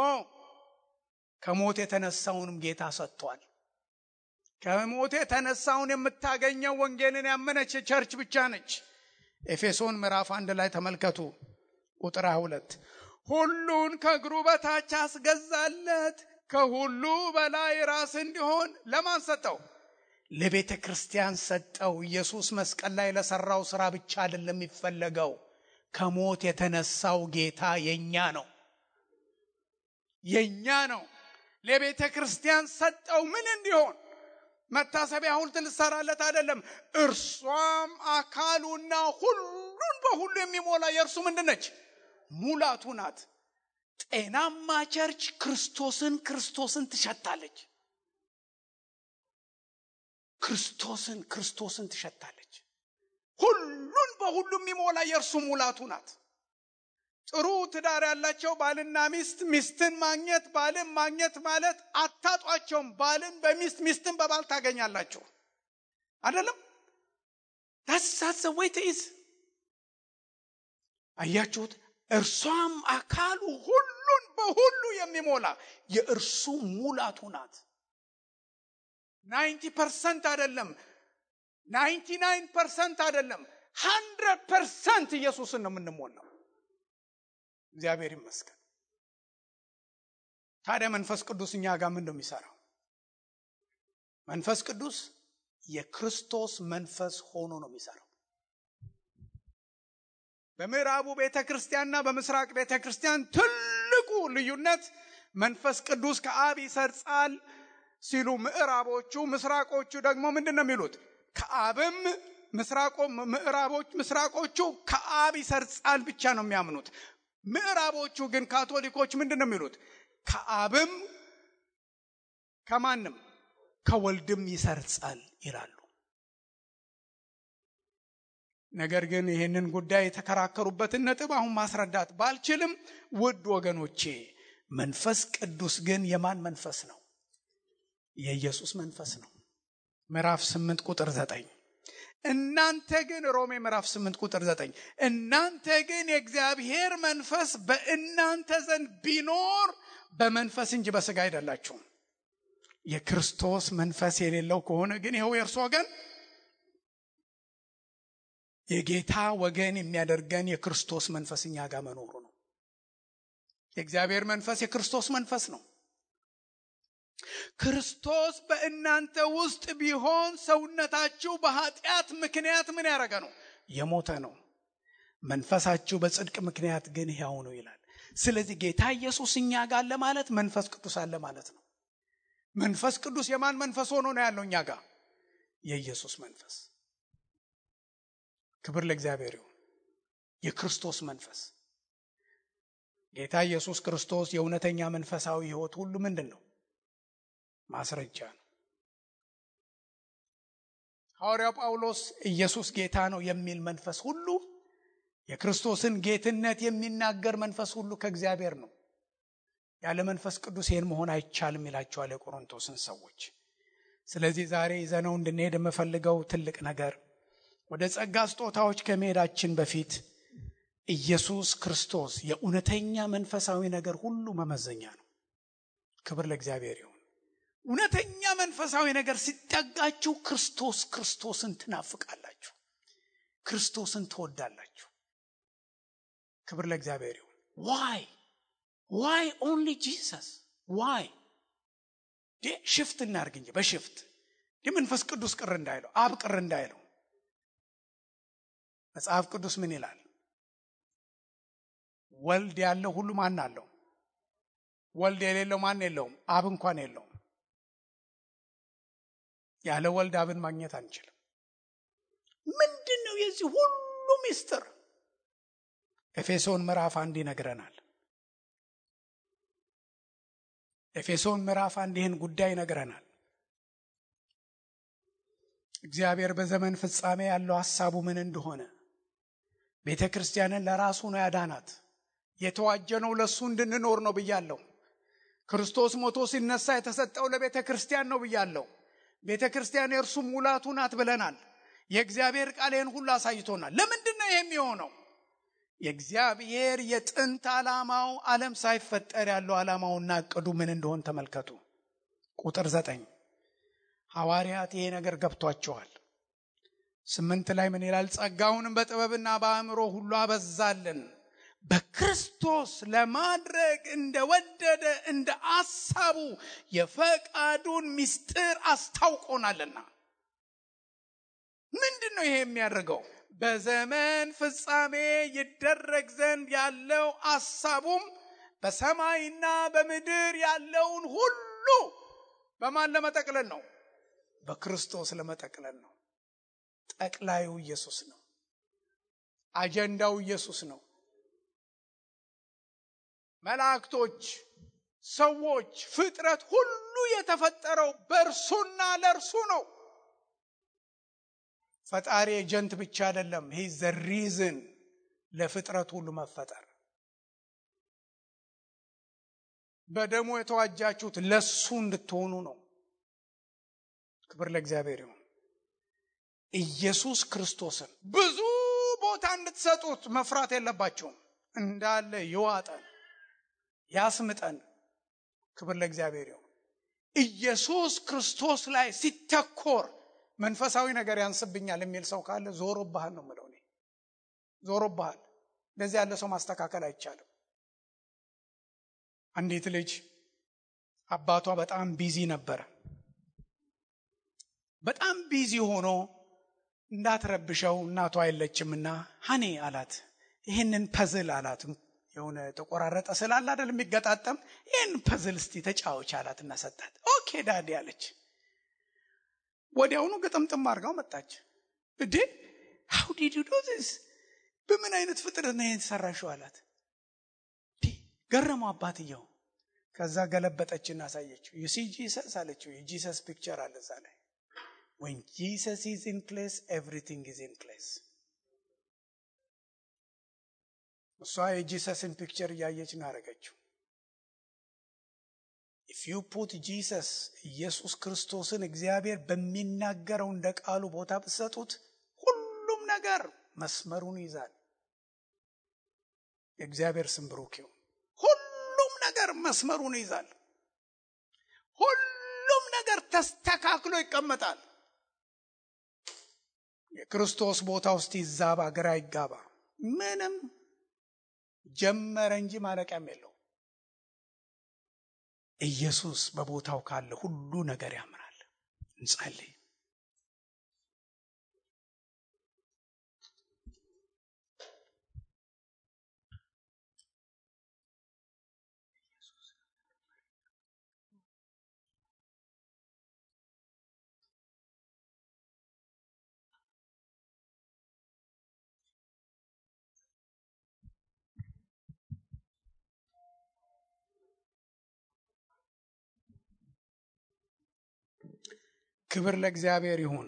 ከሞት የተነሳውንም ጌታ ሰጥቷል። ከሞት የተነሳውን የምታገኘው ወንጌልን ያመነች ቸርች ብቻ ነች። ኤፌሶን ምዕራፍ 1 ላይ ተመልከቱ ቁጥር 22 ሁሉን ከእግሩ በታች አስገዛለት፣ ከሁሉ በላይ ራስ እንዲሆን ለማን ሰጠው? ለቤተ ክርስቲያን ሰጠው። ኢየሱስ መስቀል ላይ ለሰራው ስራ ብቻ አይደለም የሚፈለገው። ከሞት የተነሳው ጌታ የኛ ነው፣ የኛ ነው። ለቤተ ክርስቲያን ሰጠው ምን እንዲሆን? መታሰቢያ ሐውልት ልሰራለት አይደለም። እርሷም አካሉና ሁሉን በሁሉ የሚሞላ የእርሱ ምንድነች? ሙላቱ ናት። ጤናማ ቸርች ክርስቶስን ትሸታለች። ክርስቶስን ትሸታለች። ሁሉን በሁሉ የሚሞላ የእርሱ ሙላቱ ናት። ጥሩ ትዳር ያላቸው ባልና ሚስትን ማግኘት፣ ባልን ማግኘት ማለት አታጧቸውም። ባልን በሚስት፣ ሚስትን በባል ታገኛላችሁ አይደለም? that's the way it is። አያችሁት? እርሷም አካሉ ሁሉን በሁሉ የሚሞላ የእርሱ ሙላቱ ናት። 90% አይደለም፣ 99% አይደለም፣ 100% ኢየሱስን ነው የምንሞላው። እግዚአብሔር ይመስገን። ታዲያ መንፈስ ቅዱስ እኛ ጋር ምን ነው የሚሰራው? መንፈስ ቅዱስ የክርስቶስ መንፈስ ሆኖ ነው የሚሰራው። በምዕራቡ ቤተክርስቲያንና በምስራቅ ቤተክርስቲያን ትልቁ ልዩነት መንፈስ ቅዱስ ከአብ ይሰርጻል ሲሉ ምዕራቦቹ፣ ምስራቆቹ ደግሞ ምንድነው የሚሉት? ከአብም ምስራቆቹ ከአብ ይሰርጻል ብቻ ነው የሚያምኑት። ምዕራቦቹ ግን ካቶሊኮች ምንድነው የሚሉት? ከአብም ከማንም ከወልድም ይሰርጻል ይላሉ። ነገር ግን ይህንን ጉዳይ የተከራከሩበትን ነጥብ አሁን ማስረዳት ባልችልም፣ ውድ ወገኖቼ መንፈስ ቅዱስ ግን የማን መንፈስ ነው? የኢየሱስ መንፈስ ነው። ምዕራፍ 8 ቁጥር 9 እናንተ ግን ሮሜ ምዕራፍ 8 ቁጥር 9 እናንተ ግን የእግዚአብሔር መንፈስ በእናንተ ዘንድ ቢኖር በመንፈስ እንጂ በሥጋ አይደላችሁም። የክርስቶስ መንፈስ የሌለው ከሆነ ግን ይኸው የእርሱ ወገን የጌታ ወገን የሚያደርገን የክርስቶስ መንፈስ እኛ ጋር መኖሩ ነው። የእግዚአብሔር መንፈስ የክርስቶስ መንፈስ ነው። ክርስቶስ በእናንተ ውስጥ ቢሆን ሰውነታችሁ በኃጢአት ምክንያት ምን ያደረገ ነው? የሞተ ነው። መንፈሳችሁ በጽድቅ ምክንያት ግን ሕያው ነው ይላል። ስለዚህ ጌታ ኢየሱስ እኛ ጋር አለ ማለት መንፈስ ቅዱስ አለ ማለት ነው። መንፈስ ቅዱስ የማን መንፈስ ሆኖ ነው ያለው እኛ ጋር? የኢየሱስ መንፈስ። ክብር ለእግዚአብሔር ይሁን። የክርስቶስ መንፈስ። ጌታ ኢየሱስ ክርስቶስ የእውነተኛ መንፈሳዊ ሕይወት ሁሉ ምንድን ነው? ማስረጃ ነው። ሐዋርያው ጳውሎስ ኢየሱስ ጌታ ነው የሚል መንፈስ ሁሉ፣ የክርስቶስን ጌትነት የሚናገር መንፈስ ሁሉ ከእግዚአብሔር ነው። ያለ መንፈስ ቅዱስ ይህን መሆን አይቻልም ይላቸዋል የቆሮንቶስን ሰዎች። ስለዚህ ዛሬ ይዘነው እንድንሄድ የምፈልገው ትልቅ ነገር፣ ወደ ጸጋ ስጦታዎች ከመሄዳችን በፊት ኢየሱስ ክርስቶስ የእውነተኛ መንፈሳዊ ነገር ሁሉ መመዘኛ ነው። ክብር ለእግዚአብሔር ይሁን። እውነተኛ መንፈሳዊ ነገር ሲጠጋችሁ ክርስቶስን ትናፍቃላችሁ፣ ክርስቶስን ትወዳላችሁ። ክብር ለእግዚአብሔር ይሁን። why only Jesus? why? ሽፍት እናርግ እንጂ በሽፍት መንፈስ ቅዱስ ቅር እንዳይለው፣ አብ ቅር እንዳይለው መጽሐፍ ቅዱስ ምን ይላል? ወልድ ያለው ሁሉ ማን አለው? ወልድ የሌለው ማን የለውም? አብ እንኳን የለውም። ያለ ወልድ አብን ማግኘት አንችልም። ምንድነው የዚህ ሁሉ ሚስጥር? ኤፌሶን ምዕራፍ 1 ይነግረናል። ኤፌሶን ምዕራፍ 1 ይህን ጉዳይ ይነግረናል። እግዚአብሔር በዘመን ፍጻሜ ያለው ሐሳቡ ምን እንደሆነ፣ ቤተ ክርስቲያንን ለራሱ ነው ያዳናት። የተዋጀነው ለሱ እንድንኖር ነው ብያለሁ። ክርስቶስ ሞቶ ሲነሳ የተሰጠው ለቤተ ክርስቲያን ነው ብያለሁ። ቤተ ክርስቲያን የእርሱ ሙላቱ ናት ብለናል። የእግዚአብሔር ቃል ይህን ሁሉ አሳይቶናል። ለምንድን ነው የሚሆነው? የእግዚአብሔር የጥንት ዓላማው ዓለም ሳይፈጠር ያለው ዓላማውና እቅዱ ምን እንደሆነ ተመልከቱ። ቁጥር 9 ሐዋርያት ይሄ ነገር ገብቷቸዋል። 8 ላይ ምን ይላል? ጸጋውንም በጥበብና በአእምሮ ሁሉ አበዛልን፣ በክርስቶስ ለማድረግ እንደወደደ እንደ አሳቡ የፈቃዱን ምስጢር አስታውቆናልና። ምንድነው ይሄ የሚያደርገው? በዘመን ፍጻሜ ይደረግ ዘንድ ያለው አሳቡም በሰማይና በምድር ያለውን ሁሉ በማን ለመጠቅለል ነው? በክርስቶስ ለመጠቅለል ነው። ጠቅላዩ ኢየሱስ ነው። አጀንዳው ኢየሱስ ነው። መላእክቶች፣ ሰዎች፣ ፍጥረት ሁሉ የተፈጠረው በእርሱና ለእርሱ ነው። ፈጣሪ ኤጀንት ብቻ አይደለም። he is the reason ለፍጥረት ሁሉ መፈጠር። በደሙ የተዋጃችሁት ለሱ እንድትሆኑ ነው። ክብር ለእግዚአብሔር ይሁን። ኢየሱስ ክርስቶስን ብዙ ቦታ እንድትሰጡት መፍራት የለባችሁም። እንዳለ ይዋጠን ያስምጠን። ክብር ለእግዚአብሔር ይሁን። ኢየሱስ ክርስቶስ ላይ ሲተኮር መንፈሳዊ ነገር ያንስብኛል የሚል ሰው ካለ ዞሮብሃል ነው የምለው እኔ። ዞሮብሃል። እንደዚህ ያለ ሰው ማስተካከል አይቻልም። አንዲት ልጅ አባቷ በጣም ቢዚ ነበረ። በጣም ቢዚ ሆኖ እንዳትረብሸው እናቷ አይለችምና ሀኔ አላት፣ ይህንን ፐዝል አላት። የሆነ ተቆራረጠ ስላለ አይደል የሚገጣጠም፣ ይህን ፐዝል እስቲ ተጫወች አላትና ሰጣት። ኦኬ ዳዲ አለች። ወዲያውኑ ግጥምጥም አድርጋው መጣች። እንዴ how did you do this? በምን አይነት ፍጥረት ነው የተሰራሽው አላት። ገረመው አባትየው። ከዛ ገለበጠችና አሳየችው። you see Jesus አለችው። የጂሰስ ፒክቸር አለ እዛ ላይ። when Jesus is in place everything is in place። እሷ የጂሰስን ፒክቸር እያየች ነው ያደረገችው። if you put Jesus ኢየሱስ ክርስቶስን እግዚአብሔር በሚናገረው እንደ ቃሉ ቦታ ብትሰጡት ሁሉም ነገር መስመሩን ይዛል። የእግዚአብሔር ስም ብሩክ ይሁን። ሁሉም ነገር መስመሩን ይዛል። ሁሉም ነገር ተስተካክሎ ይቀመጣል። የክርስቶስ ቦታ ውስጥ ይዛባ ግራ ይጋባ ምንም ጀመረ እንጂ ማለቂያም የለው። ኢየሱስ በቦታው ካለ ሁሉ ነገር ያምራል። እንጸልይ። ክብር ለእግዚአብሔር ይሁን።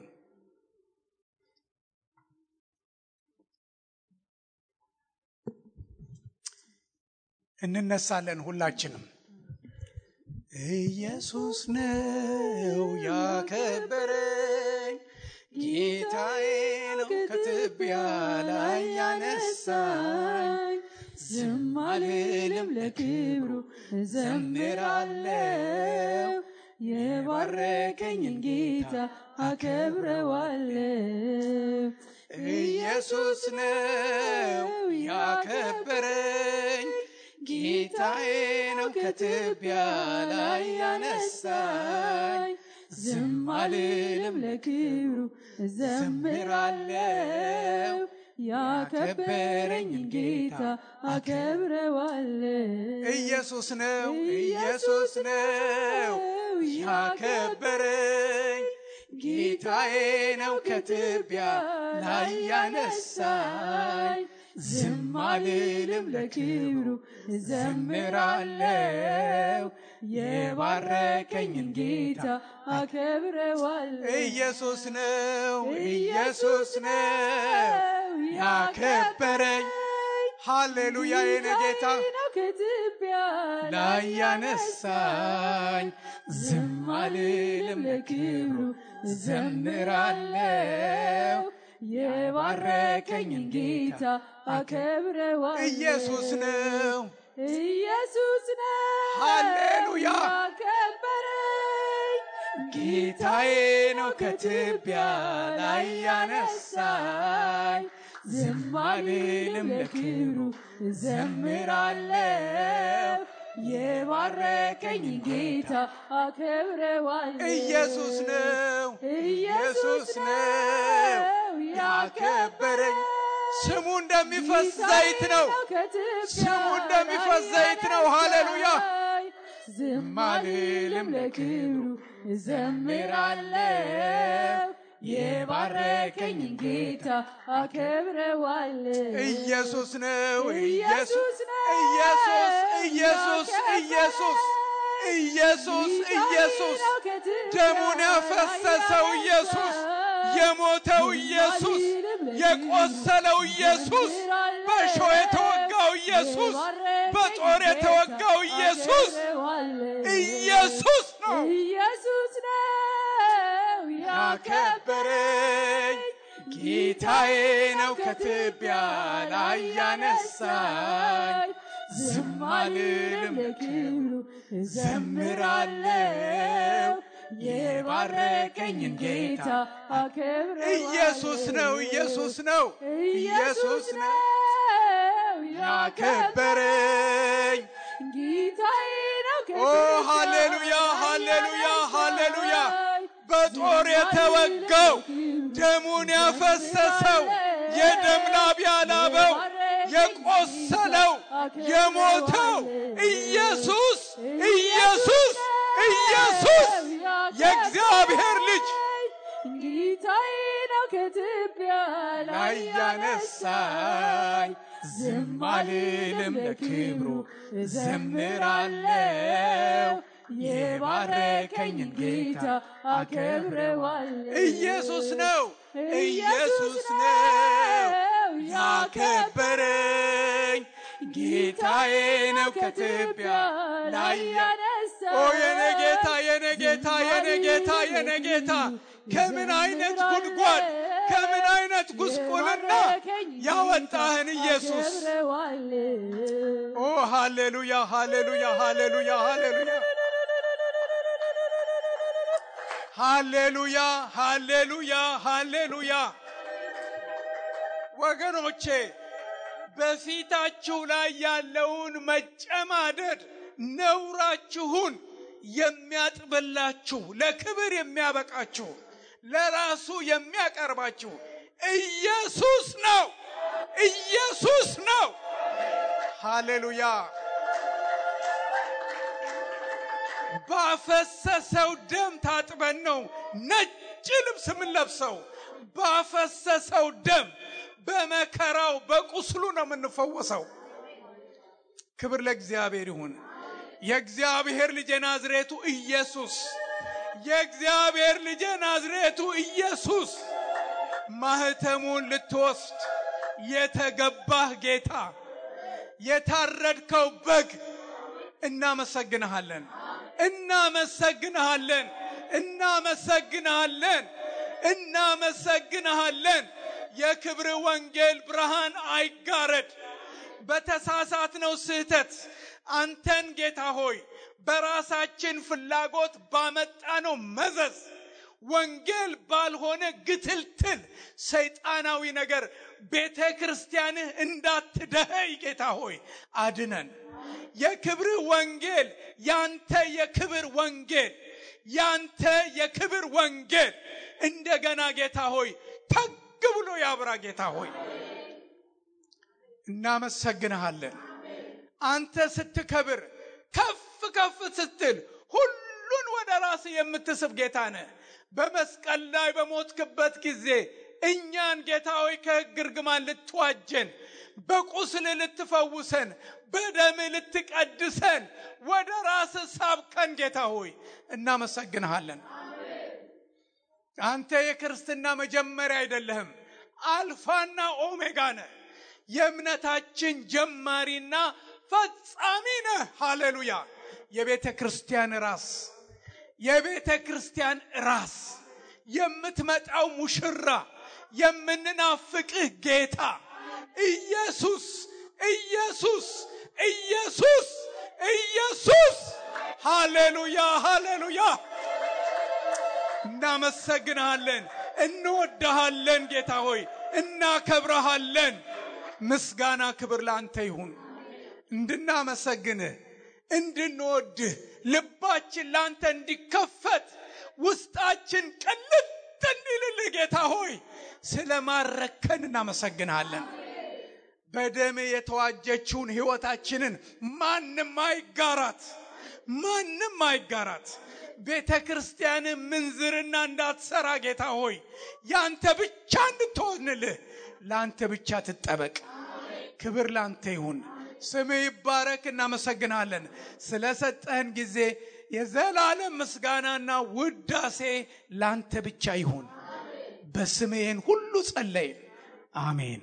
እንነሳለን ሁላችንም። ኢየሱስ ነው ያከበረኝ፣ ጌታዬ ነው ከትቢያ ላይ ያነሳኝ። ዝም አልልም ለክብሩ እዘምራለሁ፣ የባረከኝን ጌታ አከብረዋለሁ። ኢየሱስ ነው ያከበረኝ፣ ጌታዬ ነው ከትቢያ ላይ ያነሳኝ። ዝም አልልም ለክብሩ እዘምራለሁ፣ ያከበረኝን ጌታ አከብረዋለሁ። ኢየሱስ ነው ያከበረኝ፣ ጌታዬ ነው ከትቢያ ላይ ያነሳኝ ዝም አልልም ለክብሩ ዘምራለሁ የባረከኝን ጌታ አከብረዋለሁ ኢየሱስ ነው ያከበረኝ ሃሌሉያ የኔ ጌታ ከትቢያ ላይ ያነሳኝ ዝም አልልም ለክብሩ ዘምራለሁ የባረከኝን ጌታ አከብረዋለሁ ኢየሱስ ነው ሃሌሉያ ያከበረኝ ጌታዬ ነው ከትቢያ ላይ ያነሳኝ ዝም አልልም ለክብሩ ዘምራለሁ የባረከኝን ጌታ አከብረዋለሁ ኢየሱስ ነው ያከበረኝ ስሙ እንደሚፈስ ዘይት ነው ሃሌሉያ ዝም አልልም ለክብሩ ዘምራለሁ የባረከኝን ጌታ አከብረዋለሁ ኢየሱስ ነው ደሙን ያፈሰሰው ኢየሱስ የሞተው ኢየሱስ የቆሰለው ኢየሱስ በሾህ የተወጋው ኢየሱስ በጦር የተወጋው ኢየሱስ ነው ያከበረኝ ጌታዬ ነው ከትቢያ ላይ ያነሳኝ ዝም አልልም ለክብሩ ዘምራለሁ የባረከኝን ጌታ አከብረዋለሁ ኢየሱስ ነው ያከበረኝ ጌታዬ ነው ሃሌሉያ በጦር የተወጋው ደሙን ያፈሰሰው የደም ላብ ያላበው የቆሰለው የሞተው ኢየሱስ የእግዚአብሔር ልጅ ጌታዬ ነው ከትቢያ ላይ ያነሳኝ ዝም አልልም ለክብሩ ዘምራለሁ የባረከኝን ጌታ አከብረዋለሁ ኢየሱስ ነው ያከበረኝ ጌታዬ ነው ከትቢያ ላይ ያነሳኝ የኔ ጌታ ከምን አይነት ጉድጓድ ከምን አይነት ጉስቁልና ያወጣህን ኢየሱስ ሃሌሉያ ወገኖቼ በፊታችሁ ላይ ያለውን መጨማደድ ነውራችሁን የሚያጥብላችሁ ለክብር የሚያበቃችሁ ለራሱ የሚያቀርባችሁ ኢየሱስ ነው ሃሌሉያ ባፈሰሰው ደም ታጥበን ነው ነጭ ልብስ የምንለብሰው ባፈሰሰው ደም በመከራው በቁስሉ ነው የምንፈወሰው ክብር ለእግዚአብሔር ይሁን የእግዚአብሔር ልጅ ናዝሬቱ ኢየሱስ ማህተሙን ልትወስድ የተገባህ ጌታ የታረድከው በግ እናመሰግንሃለን የክብር ወንጌል ብርሃን አይጋረድ በተሳሳትነው ስህተት አንተን ጌታ ሆይ በራሳችን ፍላጎት ባመጣነው መዘዝ ወንጌል ባልሆነ ግትልትል ሰይጣናዊ ነገር ቤተክርስቲያንህ እንዳትደኸይ ጌታ ሆይ አድነን የክብር ወንጌል ያንተ የክብር ወንጌል እንደገና ጌታ ሆይ ተግ ብሎ ያብራ ጌታ ሆይ እናመሰግንሃለን አንተ ስትከብር ከፍ ስትል ሁሉን ወደ ራስ የምትስብ ጌታ ነህ በመስቀል ላይ በሞትክበት ጊዜ እኛን ጌታ ሆይ ከሕግ እርግማን ልትዋጀን፣ በቁስል ልትፈውሰን፣ በደም ልትቀድሰን ወደ ራስ ሳብከን ጌታ ሆይ እናመሰግንሃለን። አንተ የክርስትና መጀመሪያ አይደለህም፣ አልፋና ኦሜጋ ነህ። የእምነታችን ጀማሪና ፈጻሚ ነህ። ሃሌሉያ! የቤተ ክርስቲያን ራስ፣ የቤተ ክርስቲያን ራስ፣ የምትመጣው ሙሽራ፣ የምንናፍቅህ ጌታ ኢየሱስ ኢየሱስ ኢየሱስ ኢየሱስ። ሃሌሉያ ሃሌሉያ! እናመሰግንሃለን፣ እንወድሃለን ጌታ ሆይ እናከብረሃለን። ምስጋና ክብር ላንተ ይሁን። እንድናመሰግንህ እንድንወድህ ልባችን ላንተ እንዲከፈት ውስጣችን ቅልጥ እንዲልልህ ጌታ ሆይ ስለማረከን እናመሰግንሃለን። በደም የተዋጀችውን ሕይወታችንን ማንም አይጋራት። ቤተ ክርስቲያን ምንዝርና እንዳትሰራ ጌታ ሆይ ያንተ ብቻ እንድትሆንልህ ላንተ ብቻ ትጠበቅ። ክብር ላንተ ይሁን። ስምህ ይባረክ። እናመሰግናለን ስለሰጠህን ጊዜ። የዘላለም ምስጋናና ውዳሴ ላንተ ብቻ ይሁን። በስምህ ሁሉ ጸለይን። አሜን።